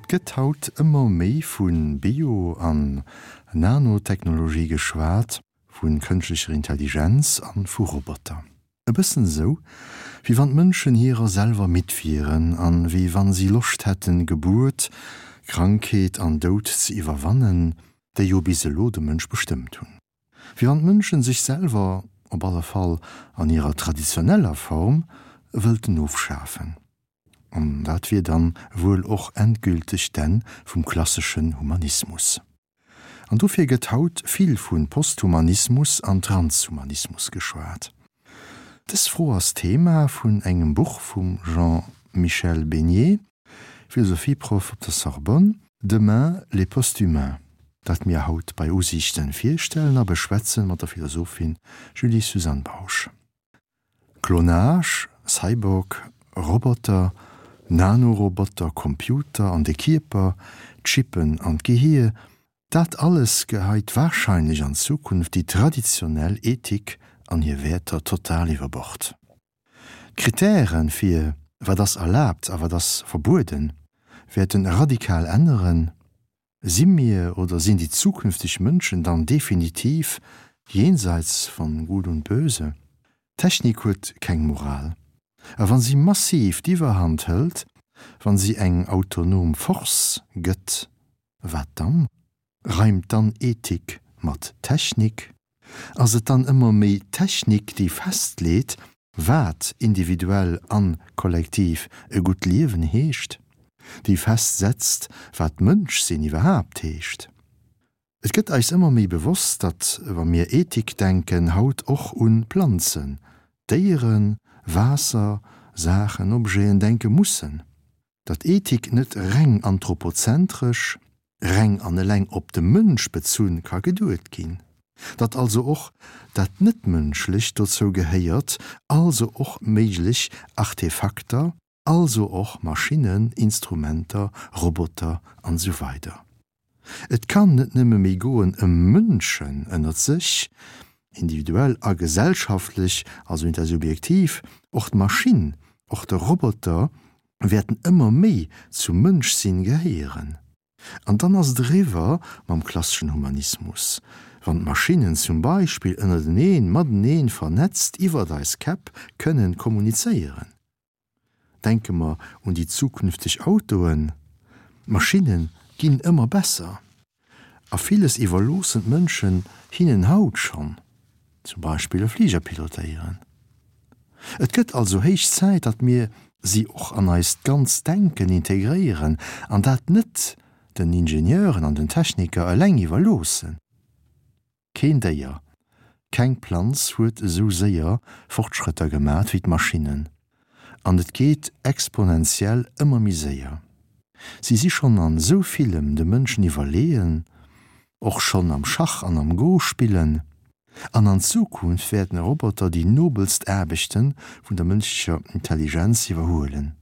Et gëtt haut ëmmer méi vu Bio an Nanotechnologie geschwat, vu kënschtlecher Intelligenz an vu Roboter. E bëssen esou, wéi wann d'Mënschen hirer selwer midd wieren an wéi wann si Loscht hätten, Gebuert, Krankheet an Doud ze iwwerwannen, déi jo bis elo de Mënsch bestëmmt hunn. Wéi wann d'Mënschen sech selwer, op alle Fall an hirer traditioneller Form, wëllten ofschafen. An dat wier dann wuel och endgülteg d'Enn vum klasseschen Humanismus. An dofir gëtt haut vill vu Posthumanismus an Transhumanismus geschwat. Dës Fro ass Thema vun engem Buch vum Jean-Michel Besnier, Philosophieproff op der Sorbonne, Demain les posthumains, dat mir haut bei Usiichten virstellen a beschwätzen mat der Philosophin Julie-Suzanne Bausch. Klonage, Cyborg, Roboter, Nanoroboter, Computer an de Kierper, Chippen an d'Gehier, dat alles geheit warscheinlech an Zukunft déi traditionell Ethik an hir Wäerter total iwwer Bord. D'Kritären fir wat ass erlaabt a wat ass verbueden wäerten radikal änneren. Si mir oder sinn déi zukünfteg Mënschen dann definitiv jenseits von Gut und Böse? D'Technik huet keng Moral. A wa si massiv d'Iwwerhand hëlt, wa si eng autonom Force gëtt, wat dann? Reimt dann Ethik mat Technik? Ass et dann ëmmer méi d'Technik, déi festleet, wat individuell an kollektiv e gutt Liewen heescht, déi festsetzt, wat Mënschsinn iwwerhaapt heescht? Et gëtt eis ëmmer méi bewosst, datt, wa mir Ethik denken, haut och un Planzen, Déieren, Waasser, Saachen, Objeten denke mussen. Datt Ethik net reng anthropozentresch, reng an eleng op de Mënsch bezunn ka geduet ginn. Datt also och dat Net-Mënschlecht dozou gehéiert, also och méiglech Artefakter, also och Maschinnen, Instrumenter, Roboter an esou weider. Et kann net nëmme méi goen ëm Mënschen ënnert sech, individuell a gesellschaftlech, also intersubjektiv, och d'Maschinn, och de Roboter wäerten ëmmer méi zum Mënschsinn gehéieren. An dann ass et eriwwer mam klasseschen Humanismus, wann d'Maschinnen zum Beispill ënnerteneen, mateneen vernetzt iwwert eis Käpp kënnen kommunizéieren. Denke mer un déi zukünfteg Autoen, d'Maschinne ginn ëmmer besser a villes iwwerloossen d'Mënschen hinnen haut schonn, zum Beispill e Fliger pilotéieren. Et gëtt also héich Zäit, datt mir si och an eist ganzt Denken integréieren an dat net den Ingenieuren an den Techniker eleng iwwerloossen. Keen Déier, keng Planz huet esou séier Fortschrëtter gemat wéi d'Maschinnen. An et geet exponentiell ëmmer méi séier. Si si schonn an esou villem de Mënschen iwwerleeën, och schonn am Schach an am Go spillen. An an Zukunft wäerten Roboter déi nobelst Aarbechte vun der mënschlecher Intelligenz iwwerhuelen.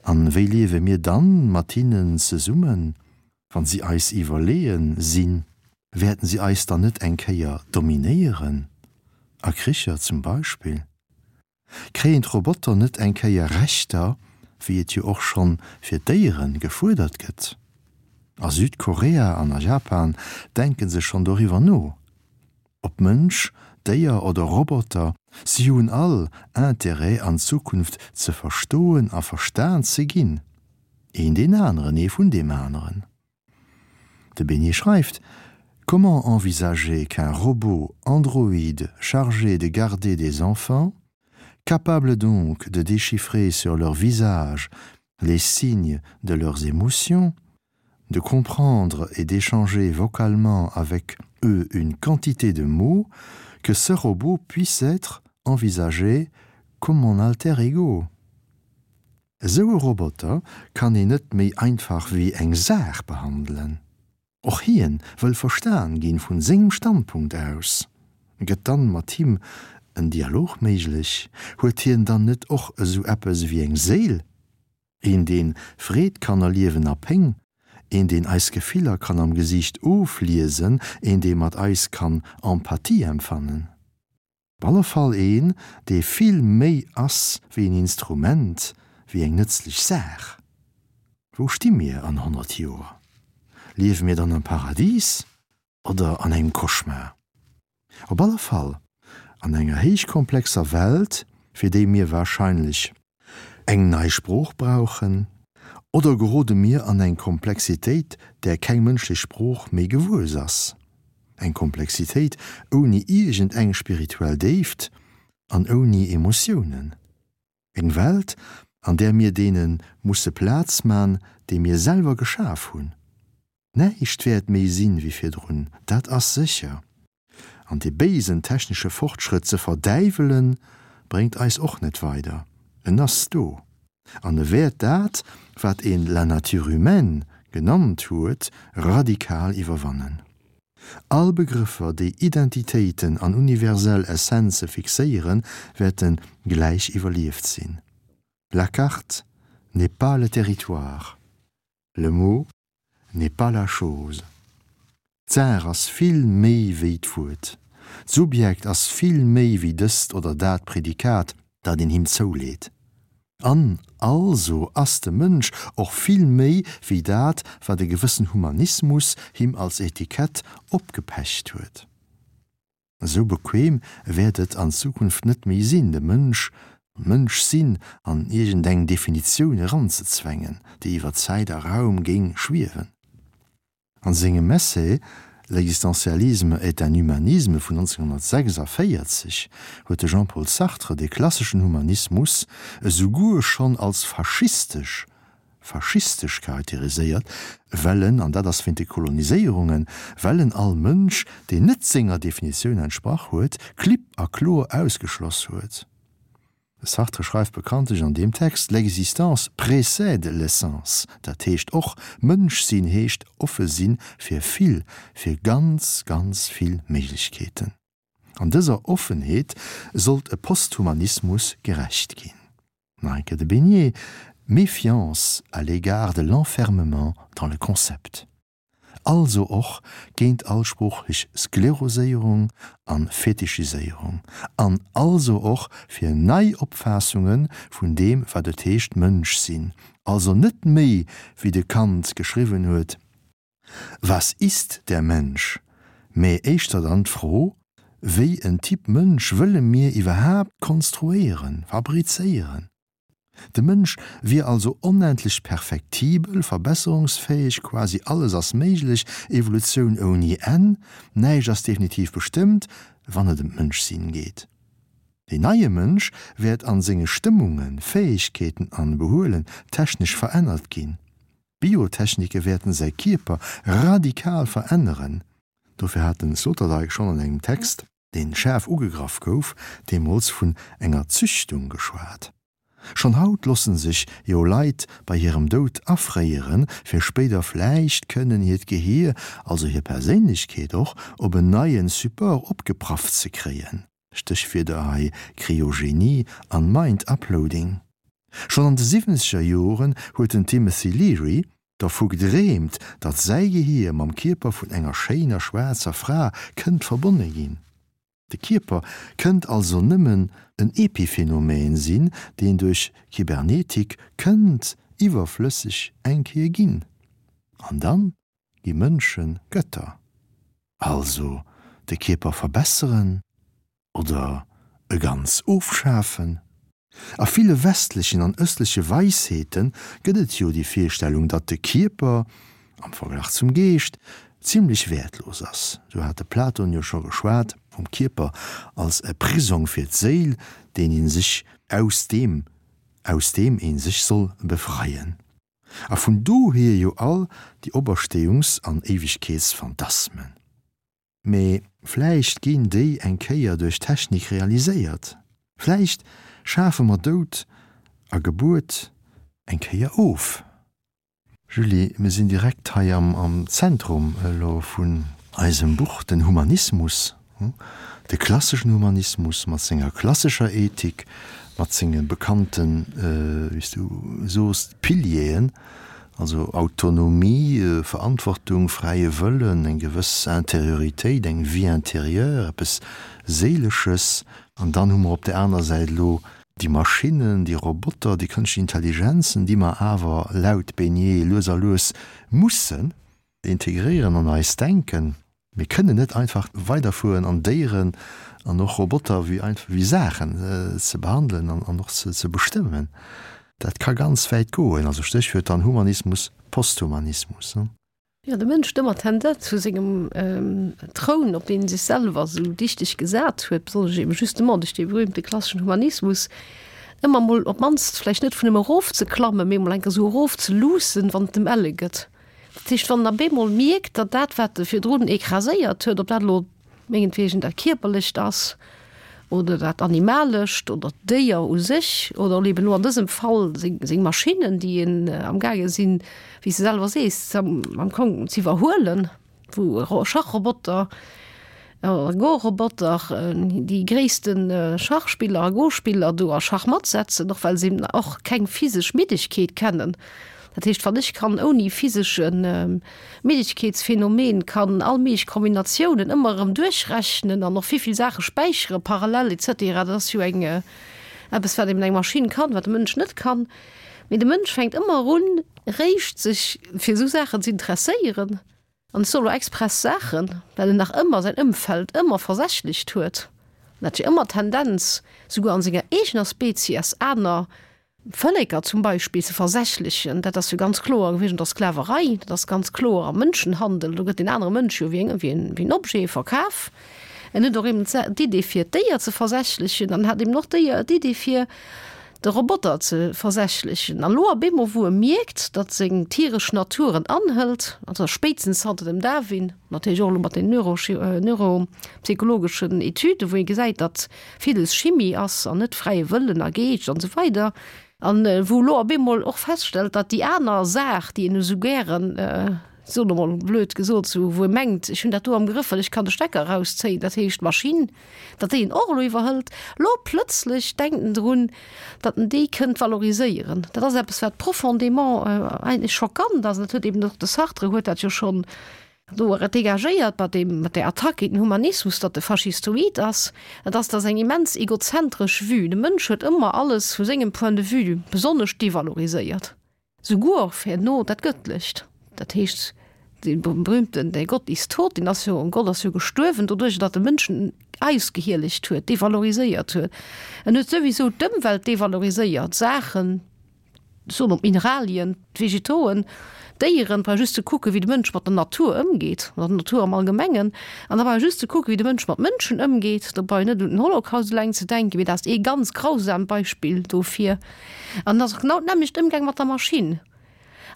An wéi liewe mir dann mat hinnen zesummen? Wann si eis iwwerleeën sinn, wäerten si eis dann net eng Kéier dominéieren? A Kricher zum Beispill? Kréien d'Roboter net eng Kéier Rechter, wéi et jo och schonn fir d'Déieren gefuerdert gëtt? A Südkorea an a Japan denken se schonn doriwwer no. Ob Mënsch, Déier oder Roboter, si hunn all Interêt an Zukunft ze verstoen a verstan ze ginn. Een deen aneren, ee vun deem aneren. De Besnier schreift: Comment envisager qu'un robot androïde chargé de garder des enfants, capable donc de déchiffrer sur leur visage les signes de leurs émotions, de comprendre et d'échanger vocalement avec eux une quantité de mots, que ce robot puisse être envisagé comme mon alter ego. Esou e Roboter kann een net méi einfach wéi eng Saach behandelen. Och hien wëll verstan ginn vun sengem Standpunkt aus. Gëtt dann mat him en Dialog méiglech? Huet hien dann net och esou eppes ewéi eng Séil? Een deen Freed kann erliewen a Péng, een deen eis Gefiller kann am Gesiicht ofliesen, een dee mat eis kann Empathie empfannen. Op alle Fall een dee vill méi ass wéi en Instrument, wéi eng nëtzlech Saach. Wou sti mir an 100 Joer? Liewe mir dann am Paradis oder an engem Cauchemar? Op alle Fall an enger héichkomplexer Welt, fir déi mir warscheinlech eng nei Sprooch brauchen, oder gerode mir an eng Komplexitéit, där keng mënschlech Sprooch méi gewuess ass, eng Komplexitéit ouni iergend eng spirituell Déift an ouni Emotiounen, eng Welt, an där mir deene musse Plaz man, déi mir selwer geschaf hunn. Näischt wäert méi sinn wéi virdrun, dat ass sécher. An dee béisen technesche Fortschrëtt ze verdäiwelen, bréngt eis och net weider. En ass do. An e wäert dat, wat een la nature humaine genannt huet, radikal iwwerwannen. All Begrëffer, déi Identitéiten an universell Essenze fixéieren, wäerte gläich iwwerlieft sinn. La carte n'est pas le territoire. Le mot n'est pas la chose. D'Saach ass vill méi wéi d'Wuert. D'Subjekt ass vill méi wéi dëst oder dat Prädikat, dat een him zouleet. An also ass de Mënsch och vill méi wéi dat, wat e gewëssen Humanismus him als Etikett opgepecht huet. Esou bequem wäert et an Zukunft net méi sinn, de Mënsch, d'Mënschsinn an iergendeng Definitioun eranzezwängen, déi iwwer Zäit a Raum géing schwiewen. An sengem Essai L'existentialisme est un humanisme vun 1946 huet de Jean-Paul Sartre de klasseschen Humanismus esouguer schonn als faschistesch faschistesch charakteriséiert, well en, an dat ass wéint de Koloniséierungen, well en all Mënsch, deen net senger Definitioun entsprach huet, klipp a kloer ausgeschloss huet. De Sartre schreift bekanntlech an deem Text, L'existence précède l'essence, dat heescht och, Mënsch sinn heescht offe si fir vill, fir ganz, ganz vill Méiglechkeeten. An dëser Offenheet sollt e Posthumanismus gerecht ginn. Marijke de Beignet, Méfiance à l'égard de l'enfermement dans le concept. Also och géint all sproochlech Skleroséierung an Fetichiséierung. An also och fir nei Opfaassunge vun deem wat et heescht Mënsch sinn. Also net méi wéi de Kant geschriwwen huet, Was ist der Mensch? Mä éischter dann d'Fro, Wéi en Typ Mënsch wëlle mir iwwerhaapt konstruéieren, fabrizéieren? De Mënsch wier also onendlech perfektibel, verbesserungsfäeg, quasi alles ass méiglech, Evolutioun ouni Enn, näischt ass definitiv bestëmmt, wann et ëm d'Mënschsinn geet. Deen neie Mënsch wäert an senge Stëmmungen, Fäegkeeten an Behuelen technesch verännert ginn. D'Biotechnike wäerten säi Kierper radikal veränneren. Dofir hat den Sloterdijk schonn an engem Text, deen schaarf ugegraff gouf, deemools vun enger Züchtung geschwat. Schonn haut losse sech jo Leit bei hirem Doud afréieren, fir spéider vläicht kënnen hiert Gehier, also hir Perséinlechkeet och, op en neien Support opgeprafft ze kréien. Stéchwierder hei Kryogenie an Mind Uploading. Schonn an de siwwenzeger Joren huet den Timothy Leary dervu gedreemt, datt säi Gehier mam Kierper vun enger schéiner schwaarzer Fra kënnt verbonne ginn. De Kierper kënnt also nëmmen en Epiphenomen sinn, deen duerch Kybernetik kënnt iwwerflësseg eng Kéier ginn. An dann gi Mënsche Götter. Also de Kierper verbesseren oder e ganz ofschafen? A ville westlechen an ëstleche Weisheete gëtt et jo déi Virstellung, datt de Kierper, am Verglach zum Geescht, zimlech wäertlos ass. Sou hat de Platon jo scho geschwat vum Kierper als e Prisong fir d'Séil, deen ee sech aus deem aus deem ee sech soll befreien. A vun dohier jo all déi Operstéiungs an Éiwegkeetsphantasmen. Mee vläicht ginn déi eng Kéier duerch Technik realiséiert. Vläicht schafe mer Doud a Gebuert eng Kéier of. Julie, mir sinn direkt hei am Zentrum elo vun eisem Buch, den Humanismus, de klasseschen Humanismus mat senger klassescher Ethik, mat senge bekannten, wéi s du soos, Pilieren, Also Autonomie, Verantwortung, fräie Wëllen, eng gewëss Intérioritéit, eng Vie intérieure, eppes Séilesches. An dann hu mer op där aner Säit elo. Déi Maschinnen, déi Roboter, déi kënschtlech Intelligenzen, déi mer awer laut Besnier lues a lues mussen integréieren an eist Denken. Mir kënnen net einfach weiderfueren an Déieren an och Roboter wéi einfach wéi Saachen ze behandelen an och ze bestëmmen. Dat ka ganz wäit goen. Also Stéchwuert dann Humanismus, Posthumanismus. Jo, de Mënsch huet ëmmer d'Tendenz vu sengem Troun, op deen e sech selwer esou dichteg gesat huet, besonnesch eben justement duerch dee berühmte klasseschen Humanismus, ëmmer emol op d'mannst vläicht net vun em erofzeklammen, mee emol eng Kéier esou erofzeluussen, wann et em elle gëtt. Dat heescht, wann en op eemol mierkt, datt dat, wat e virdrun écraséiert huet, ob dat elo mengetwegen dat Kierperlecht ass oder dat Animalescht oder d'Déier u sech oder eben elo an dësem Fall seng Maschinnen, déi een amgaange sinn, wéi s de selwer sees, am Kong z'iwwerhuelen, wou Schachroboter oder Go-Roboter déi gréisste Schachspiller a Go-Spiller do a Schachmatt setzen, och well se eben och keng physesch Middegkeet kennen. Dat heescht, wann ech kann ouni physesche Middegkeetsphänomen kann all méiglech Kombinatiounen ëmmer erëm duerchrechnen an och vill Saache späichere parallel et cetera, dat ass jo eng eppes, wat eben eng Maschinn kann, wat de Mënsch net kann. Mee de Mënsch fänkt ëmmer un, réischt sech fir esou Saachen ze interesséieren, an ech soe lo express Saachen, well en nach ëmmer säin Ëmfeld ëmmer versächlecht huet. En hat jo ëmmer d'Tendenz, souguer an senger eegener Spezies aner Vëlleker zum Beispill ze versächlechen, dat ass jo ganz kloer gewiescht an der Sklaverei, dat ass ganz kloer am Mënschenhandel, do gëtt deen anere Mënsch jo wéi en Objet verkaf. En huet och eben d'Idee fir d'Déier ze versächlechen an hat eben och d'Idee fir de Roboter ze versächlechen. An elo op eemol wou e mierkt, datt seng tieresch Natur en anhëlt, also spéitstens zanter dem Darwin, natierlech och elo mat den neuropsychologeschen Etüden, wou ee gesäit, datt villes Chimie ass an net fräie Wëllen a Geescht an esou weider, an wou elo op eemol och feststellt, datt déi aner Saach, déi en esou gären, ech soen emol blöd gesot, esou wou e mengt, ech hunn dat do am Grëff, well ech kann de Stecker erauszéien, dat heescht d'Maschinn, datt déi en och elo iwwerhëlt. Elo plëtzlech denkt en drun, datt en déi kënnt valoriséieren. Dat ass eppes, wat profondément eigentlech schockant ass, an dat huet eben och de Sartre huet dat jo schonn Do et dégagéiert mat deem, mat där Attack géint den Humanismus, datt e faschistoid ass. Et ass, dat ass eng immens egozentresch Vue. De Mënsch huet ëmmer alles vu sengem Point de vue besonnesch devaloriséiert, souguer och herno dat Gëttlecht. Dat heescht, dee berühmten Der Gott ist tot, deen ass jo, Gott ass jo gestuerwen doduerch, datt de Mënschen ausgehielegt huet, devaloriséiert huet. En huet souwisou d'Ëmwelt devaloriséiert, Saachen, Soen op d'Mineralien, d'Vegetoen, d'Déieren, brauch just ze kucken, wéi de Mënsch mat der Natur ëmgeet, mat der Natur am Allgemengen, an da brauch just ze kucken, wéi de Mënsch mat Mënschen ëmgeet. Do brauch een net un den Holocaust eleng ze denken, mee dat ass ee ganz grausamt Beispill dofir. An et ass och genau d'nämmlecht Ëmgang mat der Maschinn.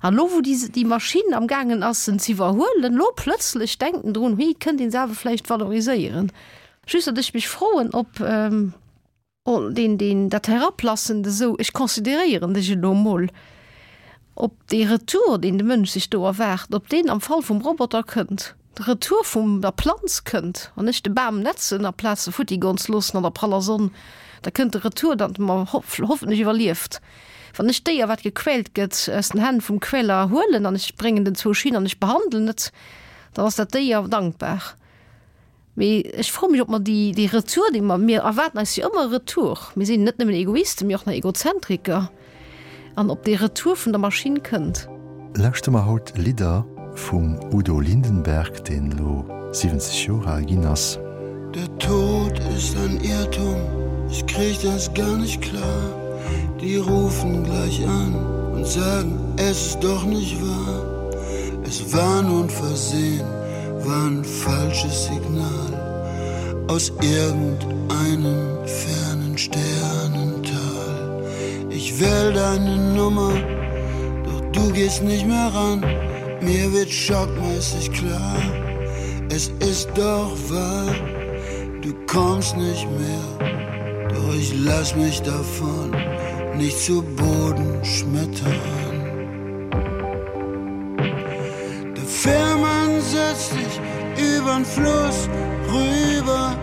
An elo, wou déi, déi Maschinn amgaangen ass, en z'iwwerhuelen, elo plëtzlech denkt en drun, Hui, kënnt een se awer vläicht valoriséieren. Just, datt ech mech froen, ob. Oh, deen, deen, dat Herablassend esou, ech consideréieren dech elo emol, ob dee Retour, deen de Mënsch sech do erwaart, ob deen am Fall vum Roboter kënnt, de Retour vum der Planz kënnt, wann ech de Bam netzen aplaz se futti goen ze loossen an der praller Sonn, da kënnt de Retour, datt e mer hoffentlech iwwerlieft. Wann ech d'Déier, wat gequält gëtt, aus den Hänn vum Quäler huelen an ech bréngen den zwou Schinn an ech behandelen et, dann ass dat Déier dankbar. Mee ech froe mech, ob mer déi, dee Retour, dee mer, mir erwaarden eis jo ëmmer e Retour, mir sinn net nëmmen Egoisten, mee och nach Egozentriker, an ob dee Retour vun der Maschinn kënnt. Lauschtere mer haut Lidder vum Udo Lindenberg, deen elo 70 Joer al ginn ass. Der Tod ist ein Irrtum, ich krieg das gar nicht klar. Die rufen gleich an und sagen, es ist doch nicht wahr. Es war nur ein Versehen. War ein falsches Signal aus irgendeinem fernen Sternental. Ich wähl deine Nummer, doch du gehst nicht mehr ran. Mir wird schockmäßig klar, es ist doch wahr, du kommst nicht mehr. Doch ich lass mich davon nicht zu Boden schmettern. Der Fährmann setzt dich übern Fluss rüber.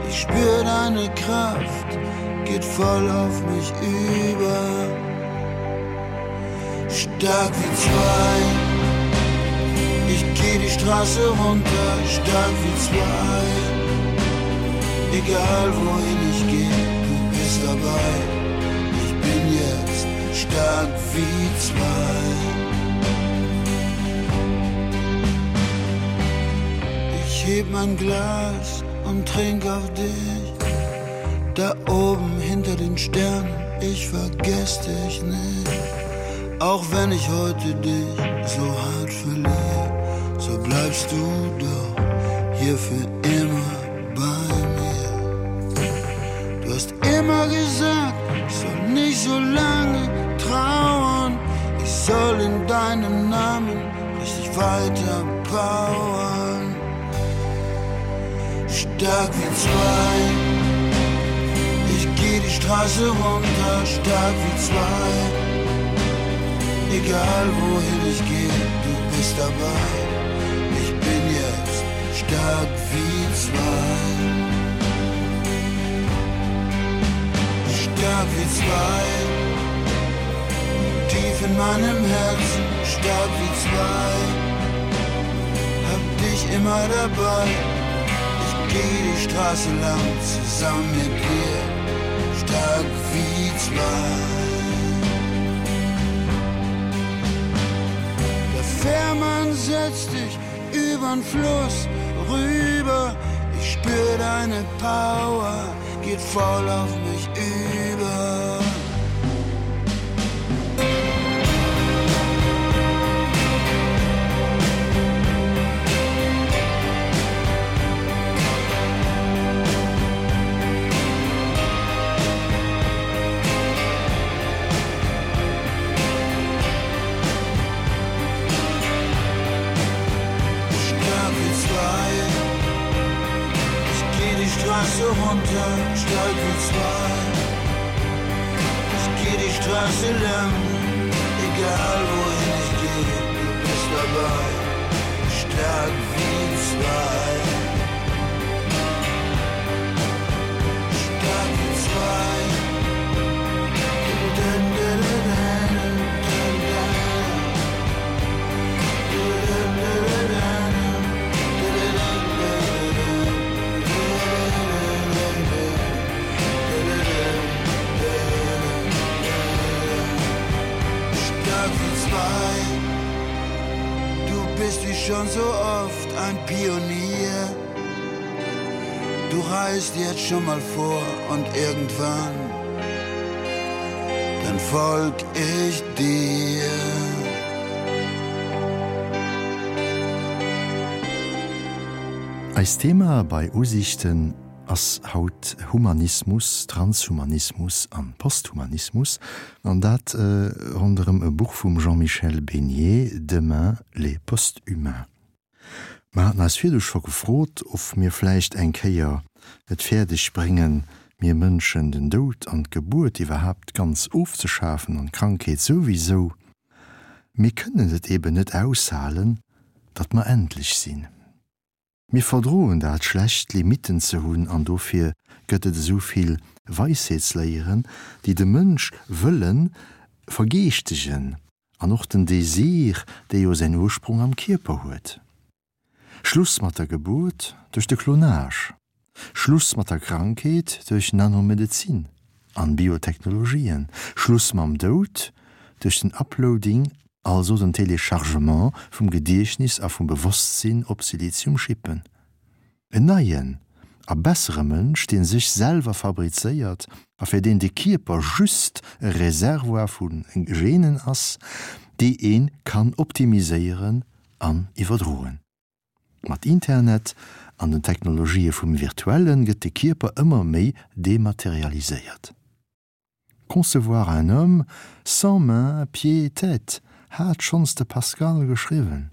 Ich spür deine Kraft, geht voll auf mich über. Stark wie zwei. Ich geh die Straße runter, stark wie zwei. Egal wohin ich geh, du bist dabei. stark wie zwei. Ich heb mein Glas und trink auf dich. Da oben hinter den Sternen, ich vergess dich nicht. Auch wenn ich heute dich so hart verliere, so bleibst du doch hier für immer bei mir. Du hast immer gesagt, ich soll nicht so lange trauern. Ich soll in deinem Namen richtig weiter powern. Stark wie zwei. Ich geh die Straße runter, stark wie zwei. Egal wohin ich geh, du bist dabei. Ich bin jetzt stark wie zwei. Stark wie zwei. Tief in meinem Herzen, stark wie zwei. Hab dich immer dabei. Ich geh die Straße lang zusammen mit dir. Stark wie zwei. Der Fährmann setzt dich übern Fluss rüber. Ich spür deine Power, geht voll auf mich über. Straße runter, stark wie zwei. Ich geh die Straße lang, egal wohin ich geh, du bist dabei, stark wie zwei. Stark wie zwei. Dun, dun, dun, dun, dun, dun. Dun, dun, dun, dun, Stark wie zwei. Du bist wie schon so oft ein Pionier. Du reist jetzt schon mal vor und irgendwann dann folg ich dir. Eist Thema bei Usichten ass haut Humanismus, Transhumanismus an Posthumanismus, an dat ronderëm e Buch vum Jean-Michel Besnier, Demain les post-humains. Mer haten eis virdu scho gefrot, of mir vläicht eng Kéier et fäerdeg bréngen, mir Mënschen den Doud an d'Gebuert iwwerhaapt ganz ofzeschafen an d'Krankheet souwisou. Mir kënnen et eben net aushalen, datt mer endlech sinn. Mir verdroen dat schlecht, Limitten ze hunn an dofir gëtt et esou vill Weisheetsléieren, déi de Mënsch wëlle vergeeschtegen an och den Désir, dee jo säin Ursprong am Kierper huet. Schluss mat der Gebuert duerch de Klonage, Schluss mat der Krankheet duerch Nanomedezin an Biotechnologien, Schluss mam Doud duerch den Uploading, also den Téléchargement vum Gediechtnis a vum Bewosstsinn op Siliziumchippen. En neien a bessere Mënsch, dee sech selwer fabrizéiert a fir deen de Kierper just e Reservoir vu Genen ass, déi ee kann optimiséieren an iwwerdroen. Mat Internet an den Technologië vum Virtuelle gëtt de Kierper ëmmer méi dematerialiséiert. Concevoir un homme sans mains, pieds et tête hat schonns de Pascal geschriwwen.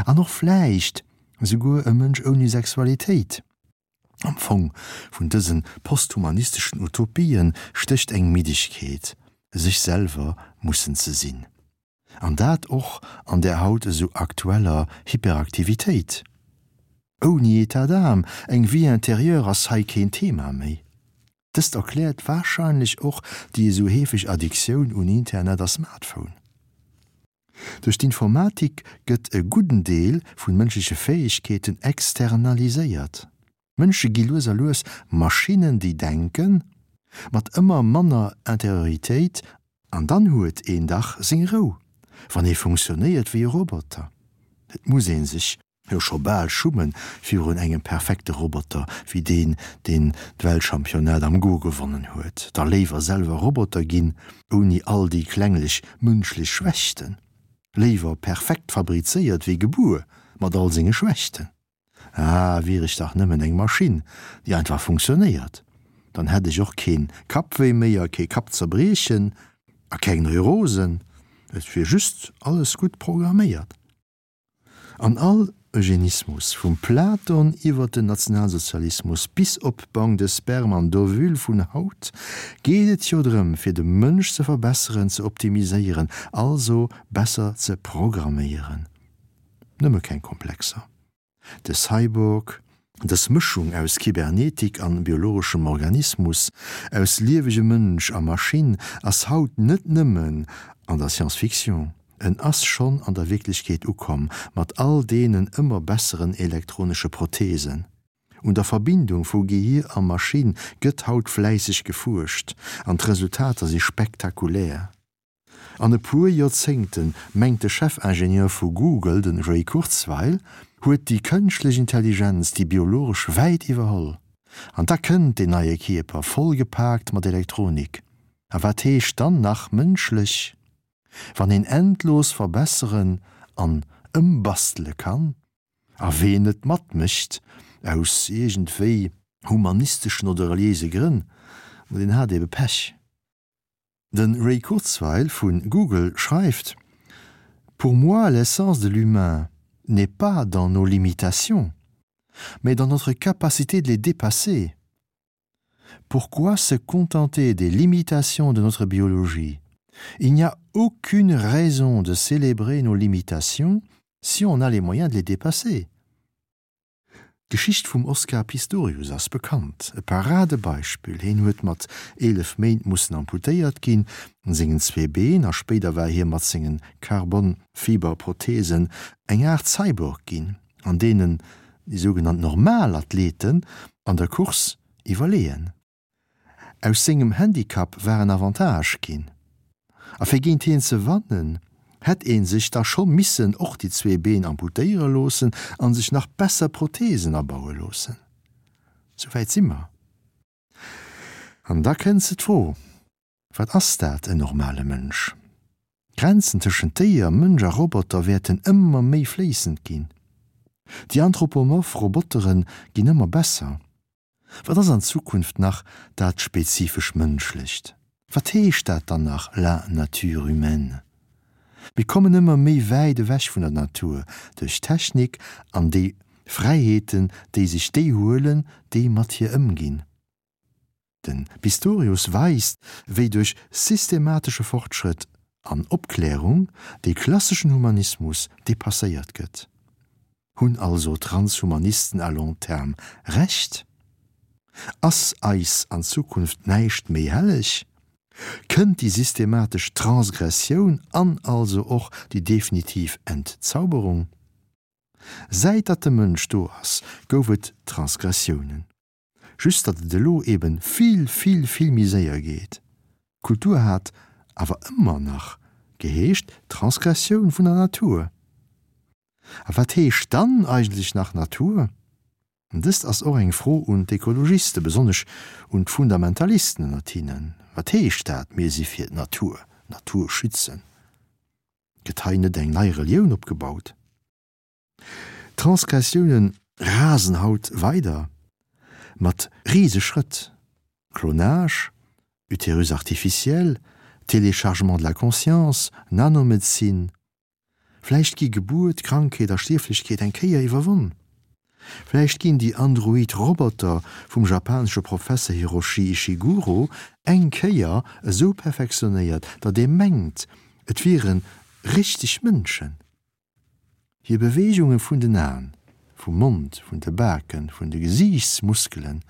An och vläicht esouguer e Mënsch ouni Sexualitéit. Am Fong vun dëse posthumanisteschen Utopien stécht eng Middegkeet, sech selwer mussen ze sinn. An dat och an där haut esou aktueller Hyperaktivitéit. Ouni État d'âme, eng Vie intérieure ass hei keen Thema méi. Dëst erkläert warscheinlech och déi esou heefeg Addiktioun un Internet a Smartphone. Duerch d'Informatik gëtt e gudden Deel vun mënschleche Fäegkeeten externaliséiert. Mënsche gi lues a lues Maschinnen déi denken, mat ëmmer manner Interioritéit. An dann huet een dach seng Rou, wann ee funktionéiert wéi e Roboter. Et muss ee sech jo scho bal schummen virun engem perfekte Roboter wéi deen, deen d'Weltchampionnat am Go gewonnen huet. Da léiwer selwer Roboter ginn, ouni all déi klenglech mënschlech Schwächten. Léiwer perfekt fabrizéiert wéi gebuer mat all senge Schwächten. Ah, wier ech dach nëmmen eng Maschinn, déi einfach funktionéiert, dann hätt ech och keen Kappwéi méi a kee Kappzerbriechen a keng Neurosen, et wier just alles gutt programméiert. An all Eugenismus, vum Platon iwwer den Nationalsozialismus bis op Banque de sperme an d'Ovule vun haut, geet et jo drëm, fir de Mënsch ze verbesseren, ze optimiséieren, also besser ze programméieren. Nëmme keng Komplexer. De Cyborg, dës Mëschung aus Kybernetik an biologeschem Organismus, aus liewegem Mënsch a Maschinn, ass haut net nëmmen an der Science-Fiction, en ass schonn an der Wierklechkeet ukomm, mat all deenen ëmmer besseren elektronesche Protheesen. Un der Verbindung vu Gehir a Maschinn gëtt haut fläisseg gefuerscht, an d'Resultater si spektakulär. An e puer Joerzéngten, mengt de Chefingenieur vu Google, de Ray Kurzweil, huet déi kënschtlech Intelligenz déi biologesch wäit iwwerholl. An da kënnt deen neie Kierper, voll gepaakt mat Elektronik. A wat heescht dann nach mënschlech? Wann een endlos verbesseren an ëmbastele kann? A ween net matmécht, aus iergendwéi humanisteschen oder reliéise Grënn, ma deen hat ebe Pech. De Ray Kurzweil vun Google schreift: Pour moi, l'essence de l'humain n'est pas dans nos limitations, mais dans notre capacité de les dépasser. Pourquoi se contenter des limitations de notre biologie? Il n'y a aucune raison de célébrer nos limitations si on a les moyens de les dépasser. D'Geschicht vum Oscar Pistorius ass bekannt. E Paradebeispill, Hien huet mat 11 Méint mussen amputéiert ginn un sengen zwee Been a spéider war hie mat sengen Carbon-Fiber-Protheesen eng Aart Cyborg ginn, an deenen déi sougenannt normal Athleten an der Course iwwerleeën. Aus sengem Handicap war en Avantage ginn, a fir géint hien ze wannen, hätt ee sech da scho missen och déi zwee Been amputéiere loossen a sech nach besser Protheesen abaue loossen. Sou wäit si mer. An da kënnt se d'Fro, Wat ass dat, en normale Mënsch? D'Grenzen tëschent Déier, Mënsch a Roboter wäerten ëmmer méi fléissend ginn. Déi anthropomorph Robotere ginn ëmmer besser. Wat ass an Zukunft nach dat spezifesch Mënschlecht? Wat heescht dat dann nach la nature humaine? Mir kommen ëmmer méi wäit ewech vun der Natur duerch d'Technik an déi Fräiheeten, déi sech déi huelen, déi mat hir ëmginn. De Pistorius weist, wéi duerch systematesche Fortschrëtt an Opklärung dee klasseschen Humanismus depasséiert gëtt. Hunn also d'Transhumanisten à long terme Recht? Ass eis an Zukunft näischt méi helleg? Kënnt déi systematesch Transgressioun an also och déi definitiv Entzauberung? Säit datt de Mënsch do ass, gouf et Transgressiounen. Just datt et elo eben vill, vill, vill méi séier geet. Kultur hat awer ëmmer nach geheescht Transgressioun vun der Natur. A wat heescht dann eigentlech nach Natur? Dëst ass och eng Fro un d'Ekologiste, besonnesch un d'Fundamentalisten ënnert hinnen. Wat heescht dat, mir si fir d'Natur, d'Natur schützen? Gëtt hei net eng nei Relioun opgebaut? D'Transgressioune rasen haut weider mat Riseschrëtt, Clonage, Utérus artificiel, Téléchargement de la conscience, Nanomedezin. Vläicht gi Gebuert, Krankheet a Stierflechkeet eng Kéier iwwerwonn. Vläicht ginn déi android Roboter vum japanesche Professer Hiroshi Ishiguro eng Kéier esou perfektionéiert, datt ee mengt, et wiere richteg Mënschen. Hir Beweegunge vun den Aen, vum Mond, vun de Baken, vun de Gesiichtsmuskelen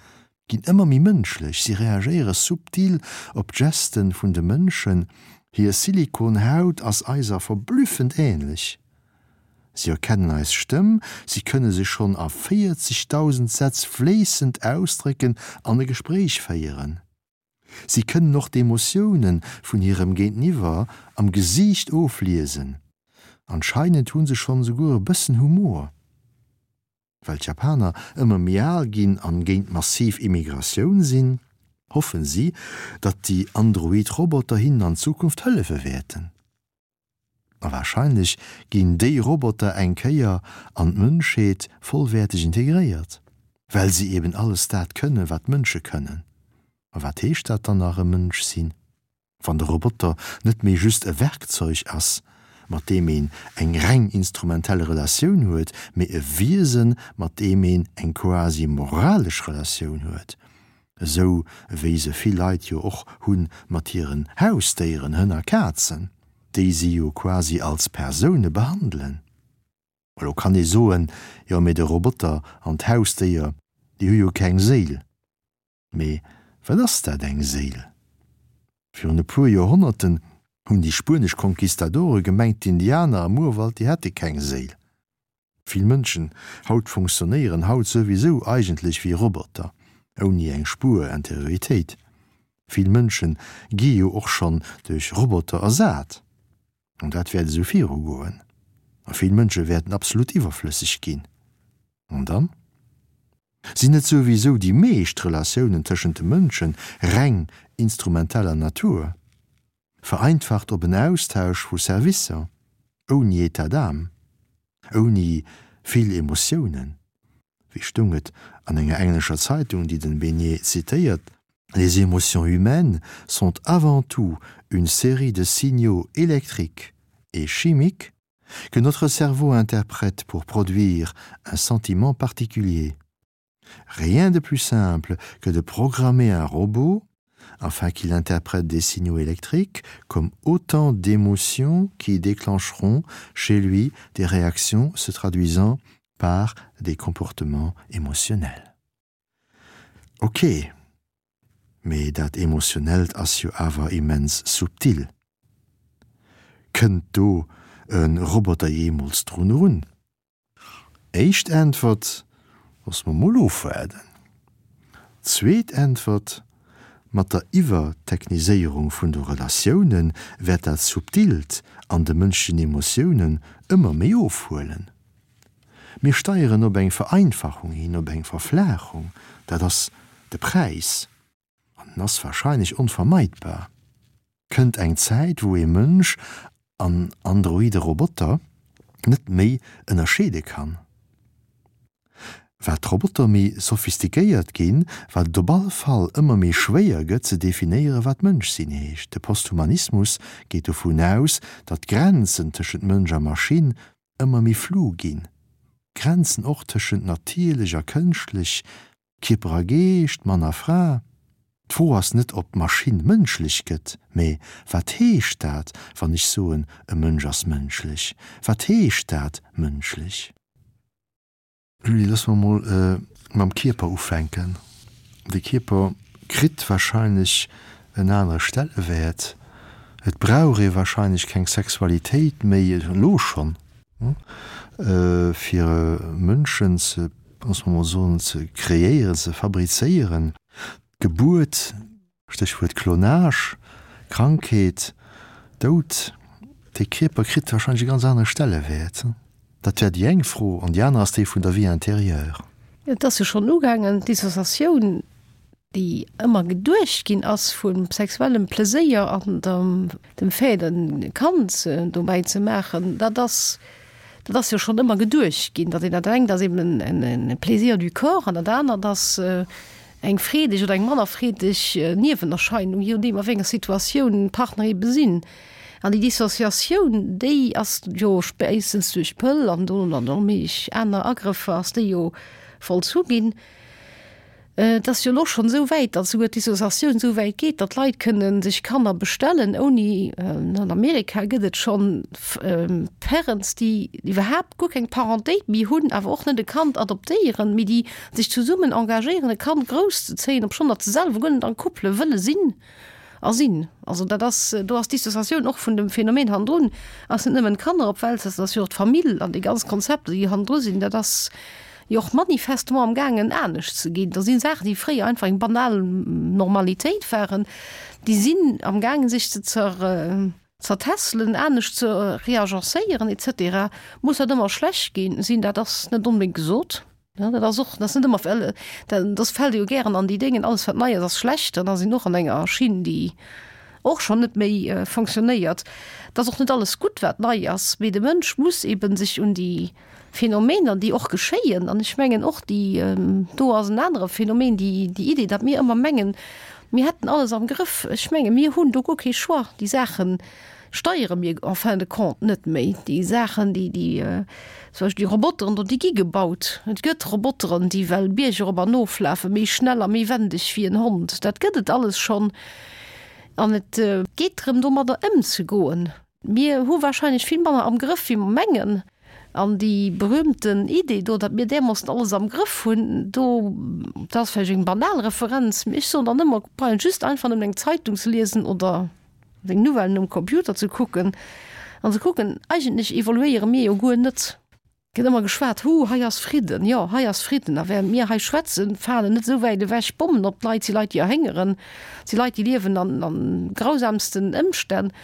ginn ëmmer méi mënschlech, si reagéiere subtil op d'Gesten vun de Mënschen, hir Silikonhaut ass eiser verblüffend änlech, si erkennen eis Stëmm, si kënne sech schonn a 40.000 Sätz fléissend ausdrécken an e Gespréich féieren. Si kënnen och d'Emotioune vun hirem Géinteniwwer am Gesiicht ofliesen. Anscheinend hu se schonn esouguer e bëssen Humor. Well d'Japaner ëmmer méi al ginn an géint massiv Immigratioun sinn, hoffen si, datt déi Android Roboter hinnen an Zukunft hëllefe wäerten. A warscheinlech ginn déi Roboter eng Kéier an d'Mënschheet vollwäerteg integréiert, well si eben alles dat kënnen, wat Mënsche kënnen. A wat heescht dat dann nach, e Mënsch sinn? Wann de Roboter net méi just e Werkzeug ass, mat deem een eng reng instrumentell Relatioun huet, mee e Wiesen, mat deem een eng quasi moralesch Relatioun huet, esou wéi se vill Leit jo och hu mat hiren Hausdéieren, Hënn a Kazen, déi si jo quasi als Persoune behandelen. Elo kann ee soen, jo mee de Roboter an d'Hausdéier, déi hu jo keng Séil. Mee wat ass dat, eng Séil? Virun e puer Joerhonnerten hunn déi spuenesch Conquistadore gemengt, d'Indianer am Urwald, déi hätte keng Séil. Vill Mënschen haut funktionéieren haut souwisou eigentlech wéi Roboter, ouni eng Spuer Interioritéit. Vill Mënsche gi jo och schonn duerch Roboter ersat. An dat wäert esou virugoen. A vill Mënsche wäerten absolut iwwerflësseg ginn. An dann? Sinn net souwisou déi meescht Relatiounen tëschent de Mënsche reng instrumenteller Natur, vereinfacht op en Austausch vu Servicer, ouni État d'âme, ouni vill Emotiounen? Wéi stoung et an enger englescher Zeitung, déi den Besnier zitéiert, Les émotions humaines sont avant tout une série de signaux électriques et chimiques que notre cerveau interprète pour produire un sentiment particulier. Rien de plus simple que de programmer un robot afin qu'il interprète des signaux électriques comme autant d'émotions qui déclencheront chez lui des réactions se traduisant par des comportements émotionnels. Ok, mee dat Emotionellt ass jo awer immens subtil. Kënnt do e Roboter jeemools drun erun? Éischt Äntwert, Loosse mer mol ofwaarden. Zweet Äntwert, Mat der Iwwertechniséierung vun de Relatioune wäert dat Subtilt an de mënschlechen Emotiounen ëmmer méi ofhuelen. Mir steieren op eng Vereinfachung hin, op eng Verflaachung. Dat ass de Präis, an en ass wahrscheinlech onvermeidbar. Kënnt eng Zäit, wou ee Mënsch an androide Roboter net méi ënnerscheede kann. Wat d'Roboter méi sophistiquéiert ginn, wat et op all Fall ëmmer méi schwéier gëtt ze definéieren, wat Mënsch sinn heescht. De Posthumanismus geet dovun aus, datt d'Grenzen tëschent Mënsch a Maschinn ëmmer méi flou ginn, d'Grenzen och tëschent natierlech a kënschtlech, Kierper a Geescht, Mann a Fra. D'Fro ass net, ob d'Maschinn mënschlech gëtt, mä wat heescht dat, wann ech soen, e Mënsch ass mënschlech? Wat heescht dat, mënschlech? Julie, loosse mer mol mam Kierper ufänken. De Kierper kritt warscheinlech en anere Stellewäert. Et brauch ee warscheinlech keng Sexualitéit méi, elo schonn, fir Mënschen ze, loosse mer mol soen, ze kreéieren, ze fabrizéieren. D'Gebuert, Stéchwuert Klonage, Krankheet, Doud, de Kierper kritt warscheinlech e ganz anere Stellewäert. Dat wär déi eng Fro. An déi aner ass déi vun der Vie intérieure. Et ass jo schonn ugaangen, d'Dissociatioun, déi ëmmer geduecht ginn ass vu sexuellem Pleséier an dem Fait, e Kand dobäi ze maachen, dat ass, dat ass jo schonn ëmmer geduecht ginn, datt een dat engt ass eben e Plaisir du corps an dat anert ass eng freedeg oder eng manner freedeg Niewenerscheinung, je nodeem a wéi enger Situatioun d'Partner ebe sinn. An déi Dissociatioun, déi ass jo spéitstens duerch d'Pëll an dono dann och méi aner Agrëffer ass déi jo vollzu ginn. Et ass jo elo schonn esou wäit, datt esouguer d'Dissociatioun esou wäit geet, datt Leit kënne sech Kanner bestellen ouni, an Amerika gëtt et schonn Parents, déi iwwerhaapt guer keng Parentéit méi hunn, awer och net e Kand adoptéieren, mee déi sech zesummen engagéieren, e Kand grousszezéien, obschonn datt se selwer guer net en couple wëlle sinn a sinn. Also dat ass, do ass d'Dissociatioun och vun dem Phänomen hannendrun, ass net nëmmen d'Kanner op d'Welt setzen, ass jo och d'Famill an déi ganz Konzepter, déi hannendru sinn. Dat ass. Jo och manifestement am gaangen anescht ze ginn. Da sinn Saachen, déi fréier einfach eng banal Normalitéit waren, déi sinn am gaangen sech ze zertässelen, anescht ze reagencéieren et cetera. Muss dat ëmmer schlecht ginn sinn? Dat ass net onbedéngt gesot. Dat ass och, dat ass net ëmmer, well dat fält jo gären an déi Déngen, alles wat nei ass, ass schlecht. An da sinn och an enger Schinn, déi och schonn net méi fonctionnéiert. Et ass och net alles gutt, wat nei ass, mee de Mënsch muss eeben sech un déi Phänomener, déi och geschéien, an ech mengen och déi, do ass en anere Phänomen, déi déi Idee, datt mir ëmmer mengen, mir hätten alles am Grëff. Ech menge mir hunn do guer kee Choix. Déi Saache steiere mir en fin de compte net méi. Déi Saachen, déi déi zum Beispill déi Roboteren do, déi gi gebaut. Et gëtt Roboteren, déi well Bierg erop an oflafen, méi schnell a méi wendeg wéi en Hond. Dat gëtt et alles schonn. An et geet drëm, domadder ëmzegoen. Mir hu wahrscheinlech vill manner am Grëff, wéi mer mengen. An déi berühmten Idee do, datt mir därmoossen alles am Grëff hunn, do, dat ass vläicht eng banal Referenz, mee ech soen dann ëmmer, brauch een just einfach nëmmen eng Zeitung ze liesen oder seng Nouvellen um Computer ze kucken an ze kucken, eigentlech evoluéiere mir jo guer net. Gëtt ëmmer geschwat, Hu, hei ass Fridden. Jo, hei ass Fridden. A während mir hei schwätzen, falen net esou wäit ewech Bommen op d'Leit. Et si Leit, déi erhéngeren. Et si Leit, déi liewen an, an grausamsten Ëmstänn.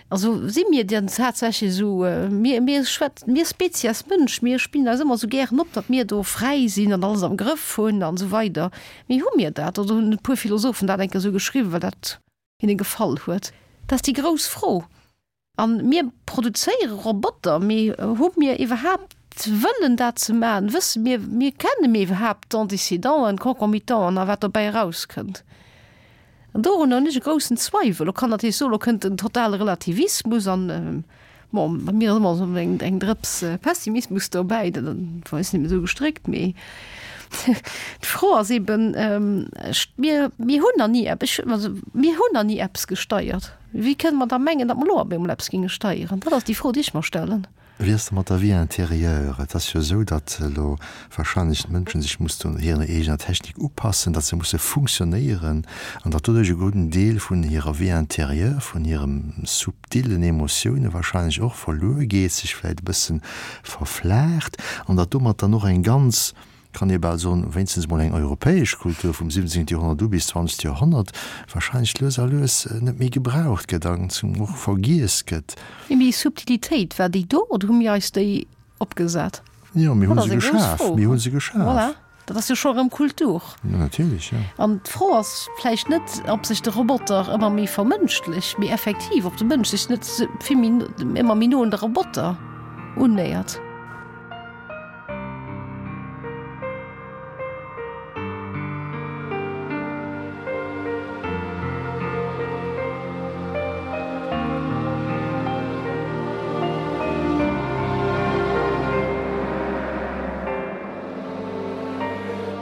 Also si mir denn tatsächlech esou, mir, mir schwätzen, mir Spezies Mënsch, mir spillen eis ëmmer esou gären op, datt mir do fräi sinn an alles am Grëff hunn an esou weider. Mee hu mir dat? Oder hunn e puer Philosophen dat eng Kéier esou geschriwwen, well dat hinne gefall huet? Dat ass déi grouss Fro. A mir produzéiere Roboter, mee hu mir iwwerhaapt wëllen dat ze maachen? Wësse mir, mir kenne mir iwwerhaapt d'Antécédenten, d'Concomitanten a wat dobäi erauskënnt? An dorunner hunn ech e groussen Zweiwel. Lo kann natierlech soen, lo kënnt den totale Relativismus an, bon, bei mir ass ëmmer esou eng, eng Drëps Pessimismus dobäi, dat ass net méi esou gestréckt, mee d'Fro ass eben, mir, mir hunn nach ni eppes, also mir hunn nach ni eppes gesteiert. Wéi kënne mer da mengen, datt mer elo op eemol eppes géinge steieren? Dat ass déi Fro, déi ech mer stellen. Wéi ass et mat der Vie intérieure? Et ass jo esou, datt elo wahrscheinlech d'Mënschen sech mussen hirer eegener Technik upassen, datt se musse funktionéieren an datt doduerch e gudden Deel vun hirer Vie intérieure, vun hirem subtillen Emotioune wahrscheinlech och verluer geet, sech vläicht e bësse verflaacht an datt domat dann och eng ganz kann ee bal soen, wéinstens emol eng europäesch Kultur vum 17. Joerhonnert u bis 20. Joerhonnert wahrscheinlech lues a lues net méi gebraucht gëtt an zum och vergiess gëtt. Mee déi Subtilitéit, war déi do oder hu mir eis déi opgesat? Jo, mir hu se geschaf, mir hu se geschaf. Voilà, dat ass jo scho erëm Kultur. Jo, natierlech, jo. An d'Fro ass vläicht net, ob sech de Roboter ëmmer méi vermënschlecht, mee effektiv, ob de Mënsch sech net vill méi, ëmmer méi no un de Roboter unnéiert.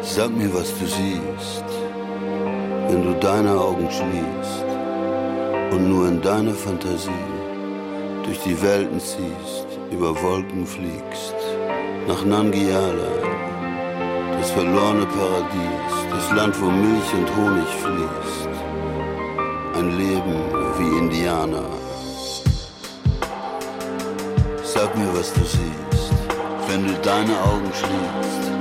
Sag mir, was du siehst, wenn du deine Augen schließt und nur in deiner Fantasie durch die Welten ziehst, über Wolken fliegst nach Nangiala, das verlorene Paradies, das Land, wo Milch und Honig fließt. Ein Leben wie Indianer. Sag mir, was du siehst, wenn du deine Augen schließt,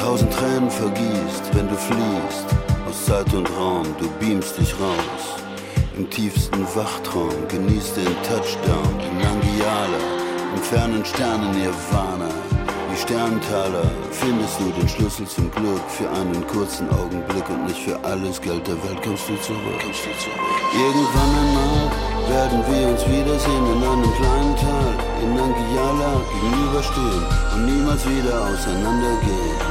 tausend Tränen vergießt, wenn du fliehst aus Zeit und Raum, du beamst dich raus. Im tiefsten Wachtraum genießt den Touchdown in Nangiala, im fernen Sternen Nirvana. Die Sterntaler findest du den Schlüssel zum Glück für einen kurzen Augenblick und nicht für alles Geld der Welt kommst du zurück. Kommst du zurück. Irgendwann einmal werden wir uns wiedersehen in einem kleinen Tal in Nangiala gegenüberstehen und niemals wieder auseinandergehen.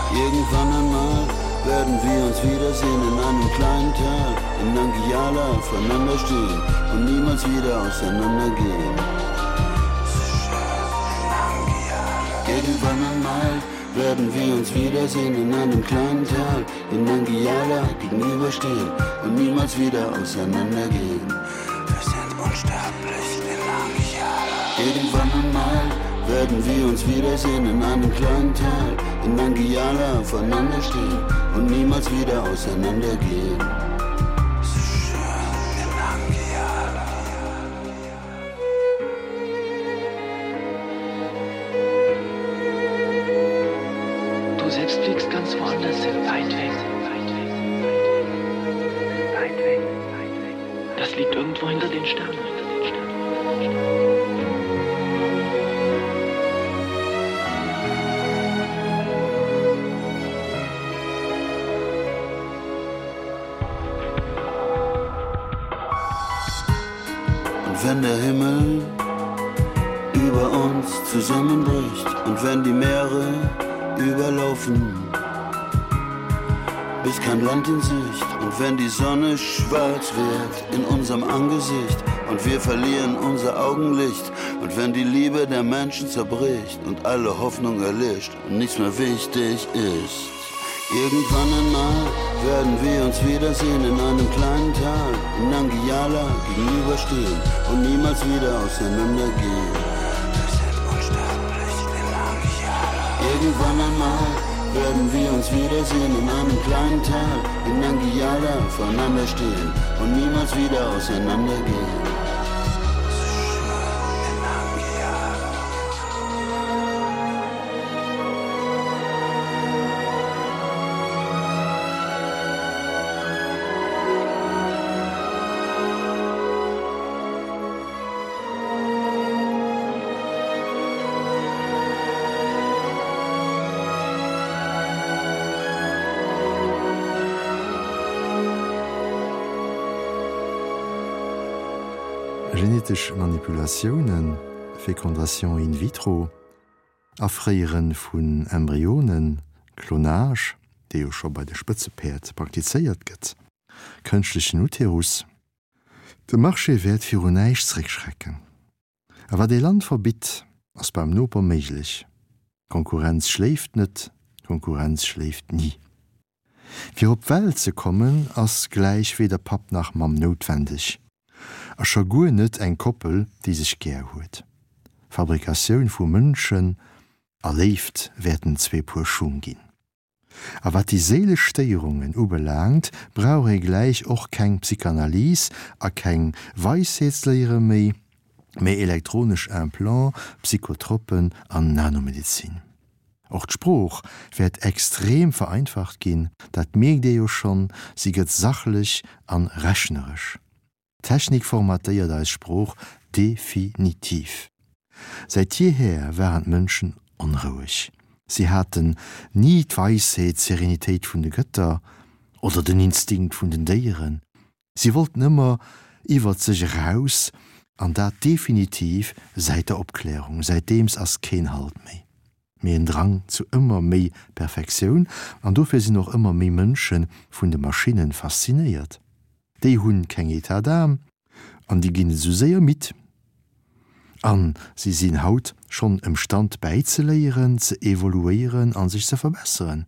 Irgendwann einmal werden wir uns wiedersehen in einem kleinen Tal in Nangiala voneinander stehen und niemals wieder auseinandergehen. Irgendwann einmal werden wir uns wiedersehen in einem kleinen Tal in Nangiala gegenüberstehen und niemals wieder auseinandergehen. Wir sind unsterblich in Nangiala. Irgendwann einmal werden wir uns wiedersehen in einem kleinen Tal in Nangiala voneinander stehen und niemals wieder auseinandergehen. liegt irgendwo hinter den Sternen. Und wenn der Himmel über uns zusammenbricht und wenn die Meere überlaufen, bis kein Land in Sicht und wenn die Sonne schwarz wird in unserem Angesicht und wir verlieren unser Augenlicht und wenn die Liebe der Menschen zerbricht und alle Hoffnung erlischt und nichts mehr wichtig ist. Irgendwann einmal werden wir uns wiedersehen in einem kleinen Tal in Nangiala gegenüberstehen und niemals wieder auseinandergehen. Wir sind unsterblich in Nangiala. Irgendwann einmal werden wir uns wiedersehen in einem kleinen Tal in Nangiala voreinander stehen und niemals wieder auseinandergehen. Genetesch Manipulatiounen, Fécondation in vitro, Afréiere vun Embryonen, Klonage, dee jo scho bei de Spëtzepäerd praktizéiert gëtt, kënschtlechen Uterus. De Marché wäert viru näischt zréckschrecken. A wat ee Land verbitt, ass beim Noper méiglech. D'Konkurrenz schléift net, d'Konkurrenz schléift ni. Fir op d'Welt ze kommen, ass gläich weder Papp nach Mamm noutwendeg. A scho guer net eng Koppel, déi sech gär huet. Fabrikatioun vu Mënschen a Léift wäerten zwee Puer Schung ginn. A wat déi séilesch Stéierungen ubelaangt, brauch ee gläich och keng Psychanalyse a keng Weisheetsléiere méi, mä elektronesch Implants, Psychotropen an Nanomedezin. Och d'Sprooch wäert extrem vereinfacht ginn, dat mierkt ee jo schonn, si gëtt sachlech an rechneresch. D'Technik formatéiert eis Sprooch definitiv. Säit jeher waren d'Mënschen onroueg. Si haten ni d'Weisheet, d'Serenitéit vun de Gëtter oder den Instinkt vun den Déieren. Si wollten ëmmer iwwert sech eraus, an dat definitiv säit der Opklärung. Säitdeems ass keen Halt méi, mee en Drang zu ëmmer méi Perfektioun, an dofir sinn och ëmmer méi Mënsche vun de Maschinne faszinéiert. Déi hunn keng État d'âme an déi ginn esou séier midd. An si sinn haut schonn emstand bäizeléieren, ze evoluéieren a sech ze verbesseren.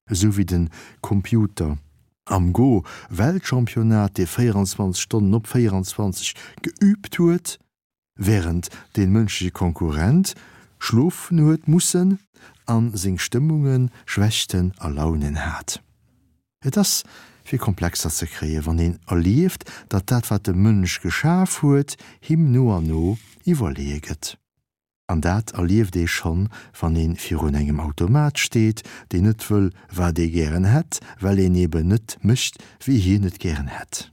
Esou wéi den Computer am Go Weltchampionnat, dee 24 Stonnen op 24 geübt huet, während deen mënschleche Konkurrent schlofen huet mussen an seng Stëmmungen, Schwächten a Launen hat. Et ass fir Komplexer ze kréien, wann een erlieft, datt dat wat de Mënsch geschaf huet, him no an no iwwerleeë gëtt. An dat erlieft ee schonn, wann ee virun engem Automat steet, deen net wëll, wat ee gären hätt, well een eben net mécht, wéi hien et gären hätt.